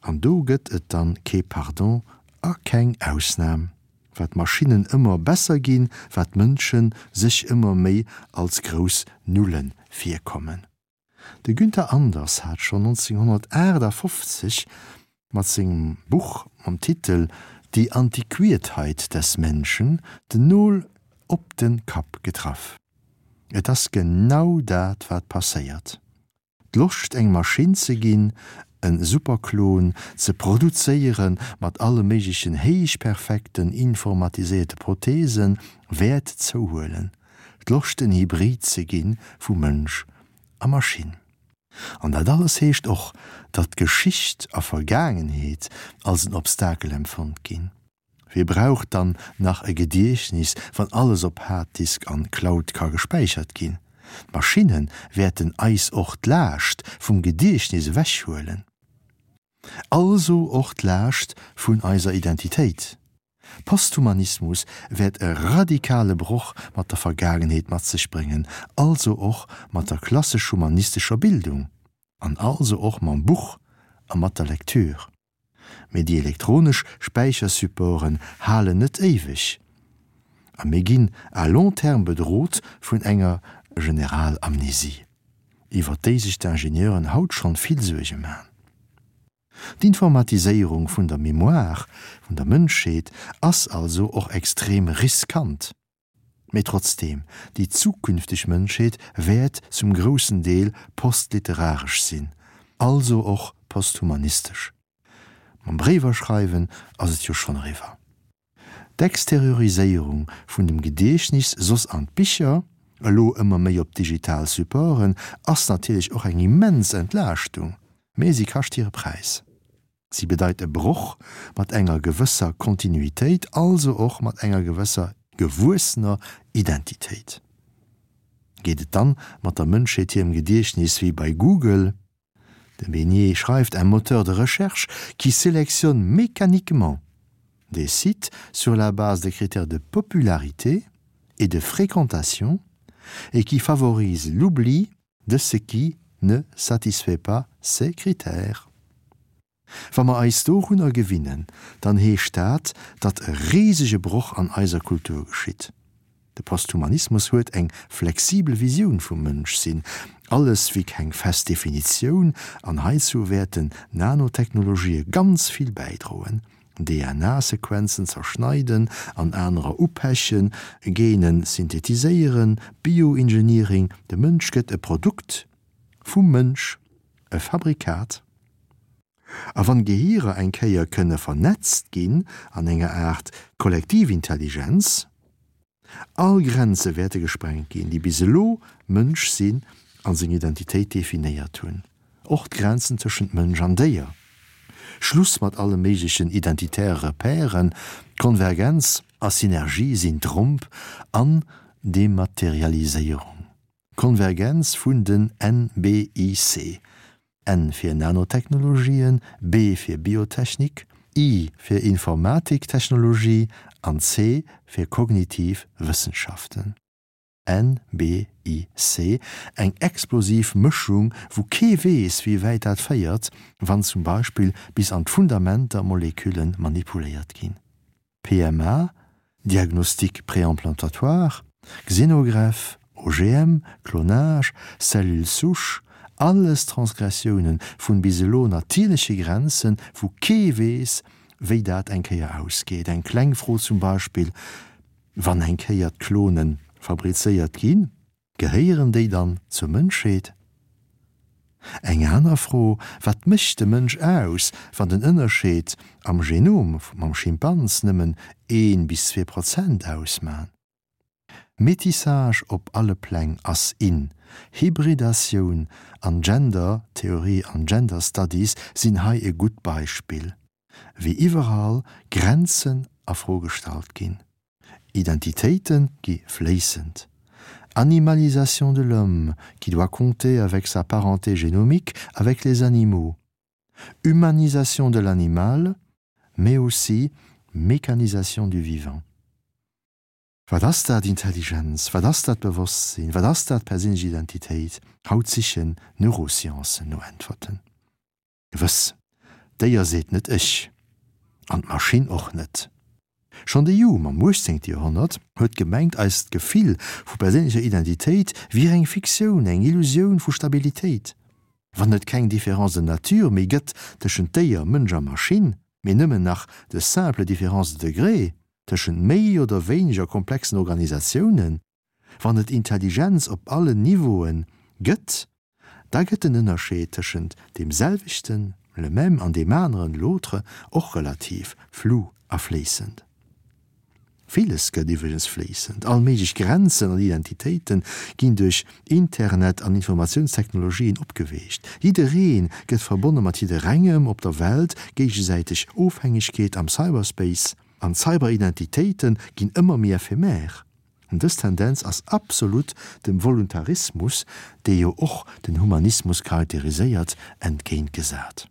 An do gëtt et dann kee Pardon a keng Ausnam. Wat d'Maschinnen ëmmer besser ginn, wat d'Mënsche sech ëmmer méi als grouss Nulle virkommen. De Günther Anders hat schonn 1958 mat sengem Buch mam Titel Die Antiquiertheit des Menschen den Nol op de Kapp getraff. Et ass genau dat wat passéiert. D'Loscht eng Maschinn ze ginn, en Superklon ze produzéiere mat alle méiglechen héichperfekten informatiséierte Prothesen wäert zouhuelen. D'Loscht en Hybrid ze gi vu Mënsch a Maschinn. An dat alles heescht och, datt Geschicht a Vergaangenheet als en Obstakel empfonnt ginn. Wie brauch dann nach e Gediechtnis, wann alles op Harddisk an Cloud ka gespäichert ginn? D'Maschinne wäerten eis och d'Laascht vum Gediechtnis ewechhuelen. Also och d'Laascht vun eiser Identitéit. Posthumanismus wäert e radikale Broch mat der Vergaangenheet mat sech bréngen, also och mat der klassesch-humanistescher Bildung an also och mam Buch a mat der Lektür. Mee déi elektronesch Späichersupporten halen net éiweg a mir ginn à long terme bedrot vun enger Generalamnesie, iwwer déi sech d'Ingenieuren haut schonn vill Suerge man. D'Informatiséierung vun der Mémoire vun der Mënschheet ass also och extrem riskant. Mee trotzdeem, déi zukünfteg Mënschheet wäert zum groussen Deel postliteraresch sinn, also och posthumanistesch. Mam Bréiwer schreiwen ass et jo schonn eriwwer. D'Exterioriséierung vun dem Gediechtnis soss an d'Bicher, elo ëmmer méi op digital Supporten, ass natierlech och eng immens Entlaaschtung, mee si kascht hire Präis. Si bedeit e Broch mat enger gewësser Kontinuitéit, also och mat enger gewësser gewuessener Identitéit. Geet et dann mat der Mënschheet hirem Gediechtnis wéi bei Google? De Besnier schreift, Un moteur de recherche qui sélectionne mécaniquement des sites sur la base des critères de popularité et de fréquentation et qui favorise l'oubli de ce qui ne satisfait pas ces critères. Wa mer eis dorunner gewinnen, dann heescht dat, datt e risege Broch an eiser Kultur geschitt. De Posthumanismus huet eng flexibel Visioun vum Mënschsinn, alles wéi keng fest Definitioun, an heizou wäerten Nanotechnologië ganz vill bäidroen, DNA-Sequenzen zerschneiden an anerer upechen, Genen synthetiséieren, Bioengineering, de Mënsch gëtt e Produkt vum Mënsch, e Fabrikat. A wann Gehirer eng Kéier kënne vernetzt ginn an enger Aart Kollektivintelligenz, All Grenze wäerte gesprengt ginn, déi bis elo Mënsch sinn a seng Identitéit definéiert hunn, och d'Grenzen tëschent Mënsch an Déier. Schluss mat alle méiglechen identitäre Repèren, Konvergenz a Synergie sinn Tromp an Dematerialiséierung. Konvergenz vun den NBIC, N fir Nanotechnologien, B fir Biotechnik, I fir Informatiktechnologie an C fir kognitiv Wëssenschaften. NBIC, eng explosiv Mëschung, wou kee weess, wéi wäit dat féiert, wann zum Beispill bis an d'Fundamenter Molekülle manipuléiert ginn. PMA, Diagnostic préimplantatoire, Xénogreffe, OGM, Clonage, Cellules souches, alles Transgressiounen vun bis elo natierleche Grenzen, wou kee weess, wéi dat eng Kéier ausgeet. Eng kleng Fro zum Beispill, Wann eng Kéier d'Klonen fabrizéiert ginn, Gehéieren déi dann zur Mënschheet? Eng aner Fro, Wat mécht de Mënsch aus, wann den Ënnerscheed am Genom mam Schimpans nëmmen een bis 2% ausman? Métissage op alle Pläng ass in, Hybridatioun an Gender Theorie an Gender Studies sinn hei e gutt Beispill, wéi iwwerall Grenzen a Fro gestallt ginn. Identitéite gi fléissend. Animalisation de l'homme qui doit compter avec sa parenté génomique avec les animaux. Humanisation de l'animal, mais aussi mécanisation du vivant. Wat ass dat Intelligenz? Wat ass dat Bewosstsinn? Wat ass dat perséinlech Identitéit? Haut sichen d'Neurosciencen no Äntwerten. Gewëss, d'Déier seet net ech, an d'Maschinn och net. Schonn de Hume am uechtzéngte Joerhonnert huet gemengt, eist Gefill vu perséinlecher Identitéit wier eng Fiktioun, eng Illusioun vu Stabilitéit. Wann et keng Différence de nature méi gëtt tëschent Déier, Mënsch a Maschinn, mee nëmmen nach de simple différence de degré tëschent méi oder wéineger komplexen Organisatiounen, Wann et Intelligenz op allen Niveaue gëtt, da gëtt den Ënnerscheed tëschent deem selwechten, le même, an deem aneren, l'autre, och relativ, flou a fléissend. Villes gëtt iwwregens fléissend. All méiglech Grenzen an Identitéite ginn duerch Internet an Informatiounstechnologien opgeweecht. Jidderee gëtt verbonne mat jidderengem op der Welt, géigesäiteg Ofhängegkeet am Cyberspace an Cyberidentitéite ginn ëmmer méi ephemer. Dës Tendenz ass absolut dem Voluntarismus, dee jo och den Humanismus charakteriséiert, entgéintgesat.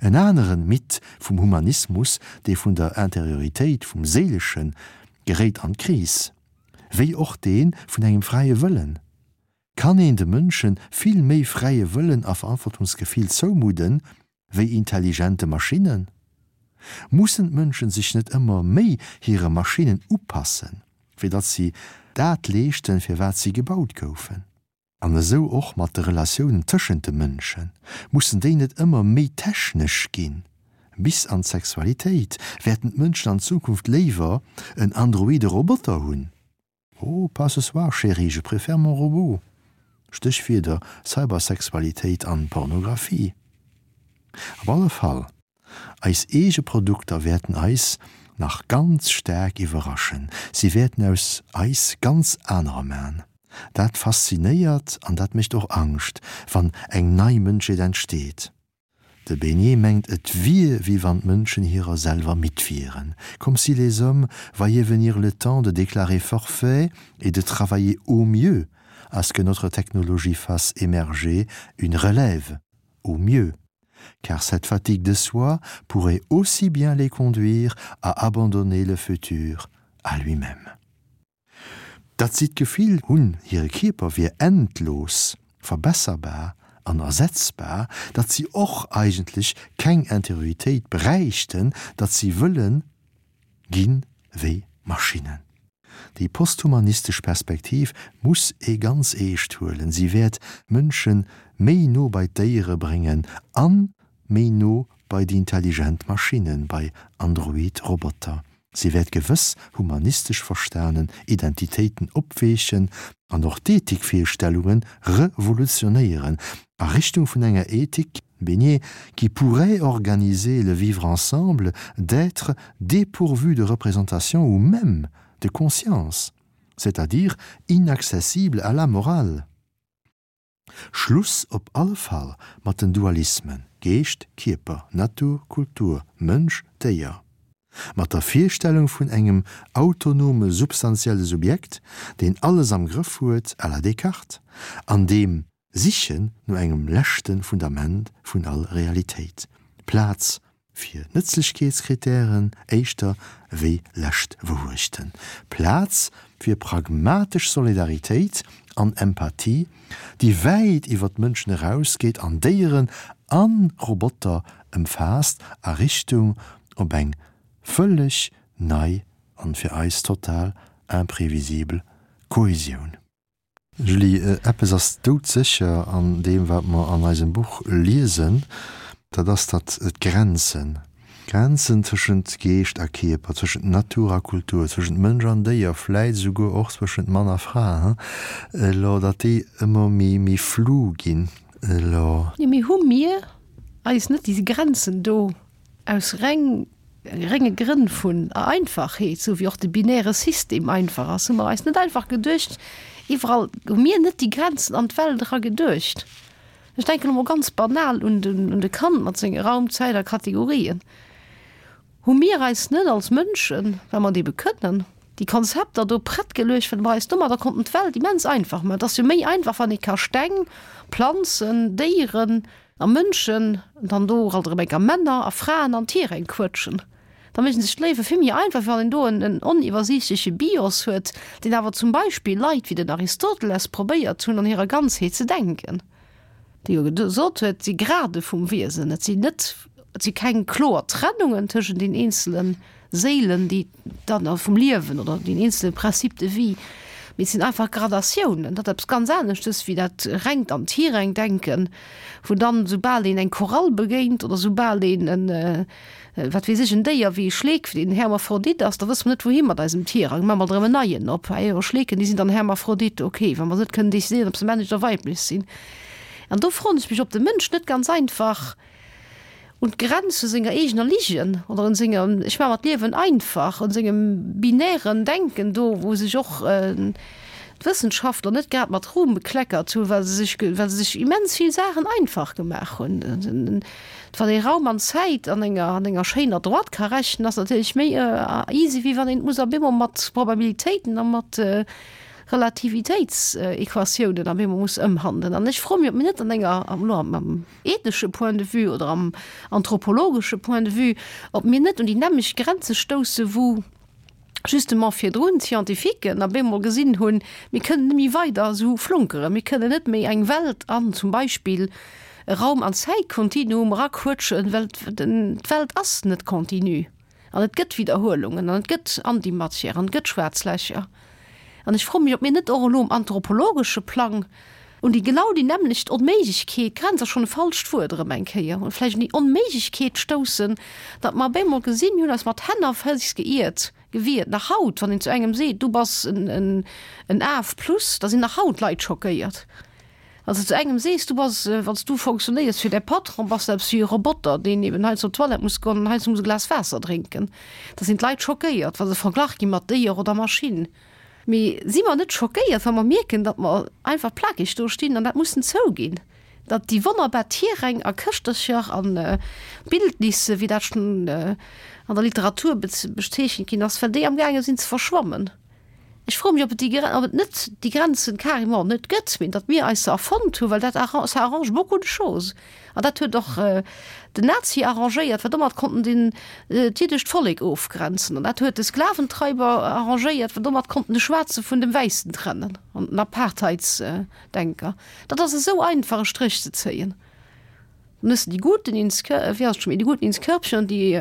En aneren Mythe vum Humanismus, dee vun der Interioritéit, vum Séileschen, geréit an d'Kris, wéi och dee vun engem fräie Wëllen. Kann een de Mënsche vill méi fräie Wëllen a Verantwortungsgefill zoumudden, wéi intelligente Maschinnen? Mussen d'Mënschen sech net ëmmer méi hire Maschinnen upassen, fir datt si dat leeschten, fir wat si gebaut goufen? An esou och mat de Relatiounen tëschent de Mënschen, mussen déi net ëmmer méi technesch ginn? Bis an d'Sexualitéit, wäerten d'Mënschen an Zukunft léiwer en androide Roboter hunn? Oh, pas ce soir chérie, je préfère mon robot. Stéchwierder, Cybersexualitéit an Pornographie. Op alle Fall, eis eege Produkter wäerten eis nach ganz staark iwwerraschen. Si wäerten aus eis ganz anerer man. Dat faszinéiert an dat mécht och Angscht, wann eng nei Mënschheet entsteet. De Beignet mengt et wier wéi wann d'Mënschen hirer selwer midd wieren, comme si les hommes voyaient venir le temps de déclarer forfait et de travailler au mieux à ce que notre technologie fasse émerger une relève, au mieux, car cette fatigue de soi pourrait aussi bien les conduire à abandonner le futur à lui-même. Datt si d'Gefill hunn, hire Kierper wier endlos verbesserbar an ersetzbar, datt si och eigentlech keng Interioritéit bräichten, datt si wëlle gi wéi Maschinnen. Déi posthumanistesch Perspektiv muss ee ganz eescht huelen, si wäert d'Mënsche méi no bei d'Déiere bréngen an méi no bei déi intelligent Maschinnen, bei Android Roboter. Si wäert gewëss humanistesch verstanen Identitéiten opweechen an och d'Ethikvirstellunge revolutionéieren a Richtung vun enger Ethik, Bénier, qui pourrait organiser le vivre ensemble d'êtres dépourvus de représentation ou même de conscience, c'est-à-dire inaccessibles à la morale. Schluss op alle Fall mat den Dualismen, Geescht, Kierper, Natur, Kultur, Mënsch, Déier. Mat der Virstellung vun engem autonome substantielle Subjekt, deen alles am Grëff huet, à la Descartes, an deem Sichen no engem leschte Fundament vun all Realitéit. Plaz fir Nëtzlechkeetskritären éischter wéi lescht Wourechten, Plaz fir pragmatesch Solidaritéit an Empathie, déi wäit iwwer d'Mënschen erausgeet an Déieren a Roboter ëmfaasst, a Richtung op eng vëlleg nei an fir eis total imprévisibel Kohesioun. Julie, eppes ass doudsécher an deem, wat mer an eisem Buch liesen, dat ass, datt d'Grenzen, d'Grenzen tëschent Geescht a Kierper, tëschent Natur a Kultur, tëschent Mënsch an Déier, vläit esouguer och zwëschent Mann a Fra, elo, datt déi ëmmer méi, méi flou ginn elo. Jo, mee hu mir eis net déi Grenzen do Aus reng renge Grënn vun Einfachheet, sou wéi och de binäre System einfach ass, hu mer eis net einfach geduecht, iwwerall hu mir net déi Grenzen an d'Welt era geduecht. Ech denken elo mol ganz banal un den un de Kant mat senge Raum, Zäit a Kategorien. Hu mir eis net als Mënschen, well mer et ebe kënnen, déi Konzepter do prett geluecht, well mer eis domadder konnten d'Welt immens einfach maachen. Et ass jo méi einfach, wann ee ka Steng, Planzen, Déieren, A Mënschen, dann do alt erëm enker Männer a Fraen an Tiräng quëtschen. Da mécht sech d'Léiwe vill méi einfach, wéi wann een do en oniwwersiichtleche Bios huet, deen awer zum Beispill Leit wéi den Aristoteles probéiert hunn an hirer Ganzheet ze denken, dee jo gesot huet, et si Grade vum Wiesen, et sinn net, et si keng kloer Trennungen tëschent den eenzelen Séilen, déi dann vum Liewen oder den eenzele Principe de vie, mee et sinn einfach Gradatiounen. Dat ass eppes ganz aneschtes wéi dat rengt an d'Hireng-Denken, wou dann, soubal een eng Korall begéint oder soubal een en, wat weess ech, en Déier wéi e Schleek, deen Hermaphrodite ass, da wësse mer net wouhi mat eisem Tirang, maache mer erëm en neien op. Ah jo, Schleeken, déi sinn dann Hermaphrodite, okay, wa mer net kënnen decidéieren, ob se männlech oder weiblech sinn. An do froen ech mech, ob de Mënsch net ganz einfach un d'Grenz vu senger eegener Ligen oder un senger ech maache mer d'Liewen einfach, un sengem binären Denken do, wou sech och d'Wëssenschaftler net grad mat Ruhm bekleckert hunn, well se sech, well se sech immens vill Saachen einfach gemaach hunn. Wann ee Raum an Zäit an enger, an enger schéiner Droite ka rechnen, ass natierlech méi easy, wéi wann een et muss op eemol mat Probabilitéiten a mat Relativitéitsequatiounen op eemol muss ëmhandelen. An ech froe mech, ob mir net an enger, elo am ethnesche Point de vue oder am anthropologesche Point de vue, ob mir net un déi nämmlecht Grenze stousse wou justement virdrun d'Scientifiquen op eemol gesinn hunn, mir kënnen net méi weider esou flunkeren, mir kënnen net méi eng Welt an zum Beispill. e Raum an Zäitkontinuum eraquëtschen, well d'Welt ass net continu an et gëtt Widderhuelungen an et gëtt Antimatière an et gëtt schwaarz Lächer. An ech froe mech, ob mir net och elo um anthropologesche Plang un déi genau déi nämmlecht Onméiglechkeet, Grenz ass schonn e falscht Wuert erëm eng Kéier, vläicht un déi Onméiglechkeet stoussen, datt mer op eemol gesinn, mir hunn eis mat Hänn a Féiss geiert, gewiert. Nach haut, wann een zu engem seet, du bass en Af plus, da sinn nach haut Leit schockéiert. Wann s de zu engem sees, du bass, wann s du fonctionnéiers fir däi Patron, bass de eppes wéi e Roboter, deen eben heiansdo op d'Toilette muss goen an heiansdo muss e Glas Waasser drénken, da sinn d'Leit schockéiert, wa se verglach gi mat Déier oder Maschinn. Mee si mer net schockéiert, wa mer mierken, datt mer einfach plakeg do stinn an dat mussen zouginn, datt déi wonnerbar Tierräng a Këschtercher a Bildnisse, wéi dat schonn an der Literatur bezeechent ginn ass, well déi amgaange sinn ze verschwammen? Ech froe mech, ob et déi, ob et net déi Grenzen carrément net gëtt, mee datt mir eis se erfonnt hunn, well dat ça arrange beaucoup de choses. An dat huet och den Nazi arrangéiert, well domat konnt en den, d'jiddescht Vollek ofgrenzen. An dat huet de Sklaventreiber arrangéiert, well domat konnt en de Schwaarze vun dem Wäissen trennen an den Apartheidsdenker. Dat ass esou einfach e Stréch ze zéien. Dann hues de die Guten ins Kör, wéi ass et scho méi, die Guten ins Körbchen und die,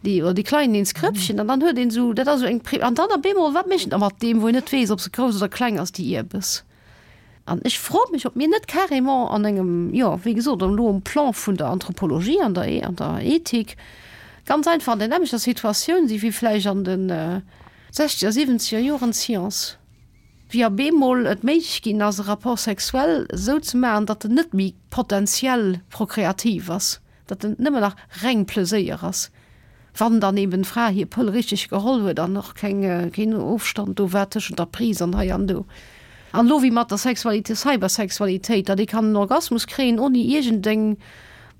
die, oder die Kleinen ins Krëppchen. An dann huet een esou, dat ass esou eng Pri, an dann op eemol, wat mécht een da mat deem, wou een net weess, ob se grouss oder kleng ass, déi Ierbes? An ech froe mech, ob mir net carrément an engem, jo, wéi gesot, elo um Plan vun der Anthropologie an der, an der Ethik ganz einfach an der nämmlechter Situatioun si wéi vläicht an de sechzeger, siwwenzeger Joren d'Science. Wéi op eemol et méiglech ginn ass, e Rapport sexuel esou ze maachen, datt en net méi potentiell prokreativ ass, datt en nëmmen nach reng Pleséier ass, wann dann eben d'Fra hir Pëll richteg geholl huet an och keng, keen Ofstand do war tëschent der Prise an hei an do. An elo wéi mat der Sexualité, Cybersexualitéit, datt ee kann en Orgasmus kréien, oni iergendeng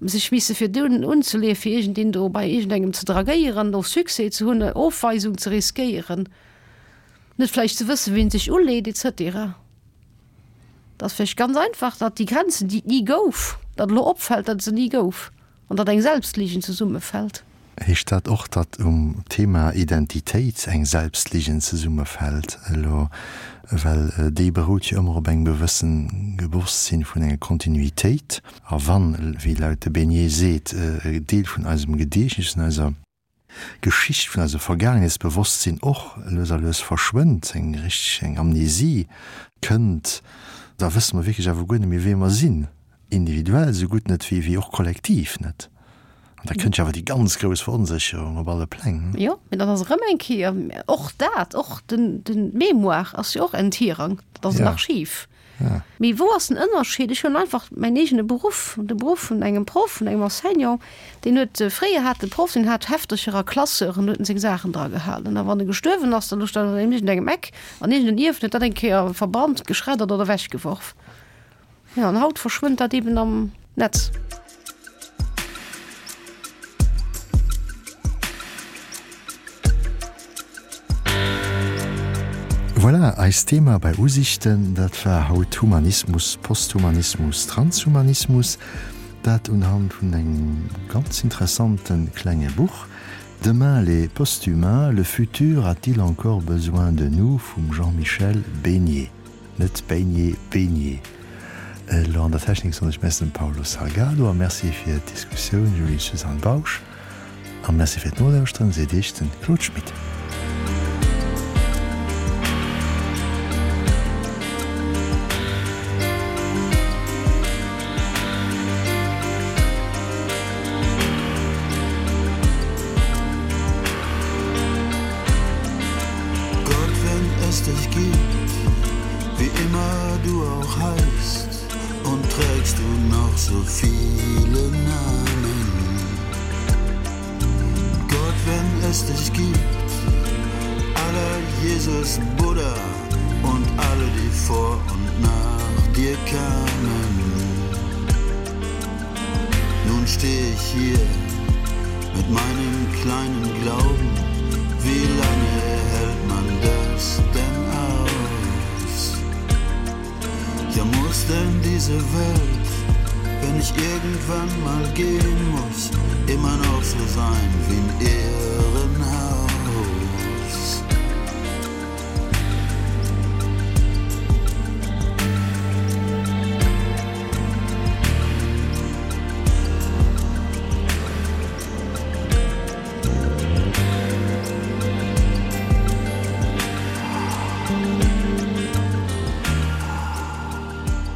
sech misse virdun unzeleeën, fir iergendeen do bei iergendengem ze dragéieren, do Succès ze hunn, Ofweisung ze riskéieren. Net vläicht ze wëssen, wien sech uleet, et cetera. Et ass vläicht ganz einfach, datt déi Grenzen, déi et ni gouf, datt elo opfält, datt et se ni gouf an datt eng Selbstligen zesummefält. Heescht dat och, datt um Thema Identitéit eng Selbstligen zesummefält elo? Well déi berout jo ëmmer op engem gewëssen Bewosstsinn vun enger Kontinuitéit. A wann, wéi laut de Besnier seet, e Deel vun eisem Gediechtnes, vun eiser. Geschicht vun eisem Vergaangenheetsbewosstsinn och lues a lues verschwënnt, eng richteg eng Amnesie kënnt, da wësse mer wierklech awer guer net méi wee mer sinn, individuell esou gutt net wéi wéi och kollektiv net. An da kënnt jo awer déi ganz grouss Veronsécherung op alle Pläng. Jo, mee dat ass erëm eng Kéier och dat, och den den d'Mémoire ass jo och en Tirang, dat ass en Archiv. Mee wou ass den Ënnerscheed? Ech hunn einfach mäin eegene Beruff, de Beruff vun engem Proff, vun engem Enseignant, deen huet, fréier hat de Proff, deen hat Heftercher a Classeuren, huet en seng Saachen dra gehalen. A wann e gestuerwen ass, da louch dat an iergendengem Eck an iergendeen Ierf huet dat eng Kéier verbrannt, geschreddert oder ewechgeworf. Jo, an haut verschwënnt dat eben am Netz. Voilà, eist Thema bei Usichten, dat war haut Humanismus, Posthumanismus, Transhumanismus. Dat unhand vun engem ganz interessante klenge Buch, Demain les posthumains, le futur a-t-il encore besoin de nous vum Jean-Michel Besnier. Net Beignet, Benier. Elo an der Technik soen ech Merci dem Paulo Salgado a Merci fir d'Diskussioun Julie-Suzanne Bausch. A Merci fir d'Nolauschteren, seet Iech den Claude Schmit. Gott, wenn es dich gibt, wie immer du auch heißt und trägst du noch so viele Namen. Gott, wenn es dich gibt, aller Jesus, Buddha und alle, die vor und nach dir kamen. Nun stehe ich hier mit meinem kleinen Glauben, wie lange hält man das denn aus? Ja muss denn diese Welt, wenn ich irgendwann mal gehen muss, immer noch so sein wie ein Irrenhaus?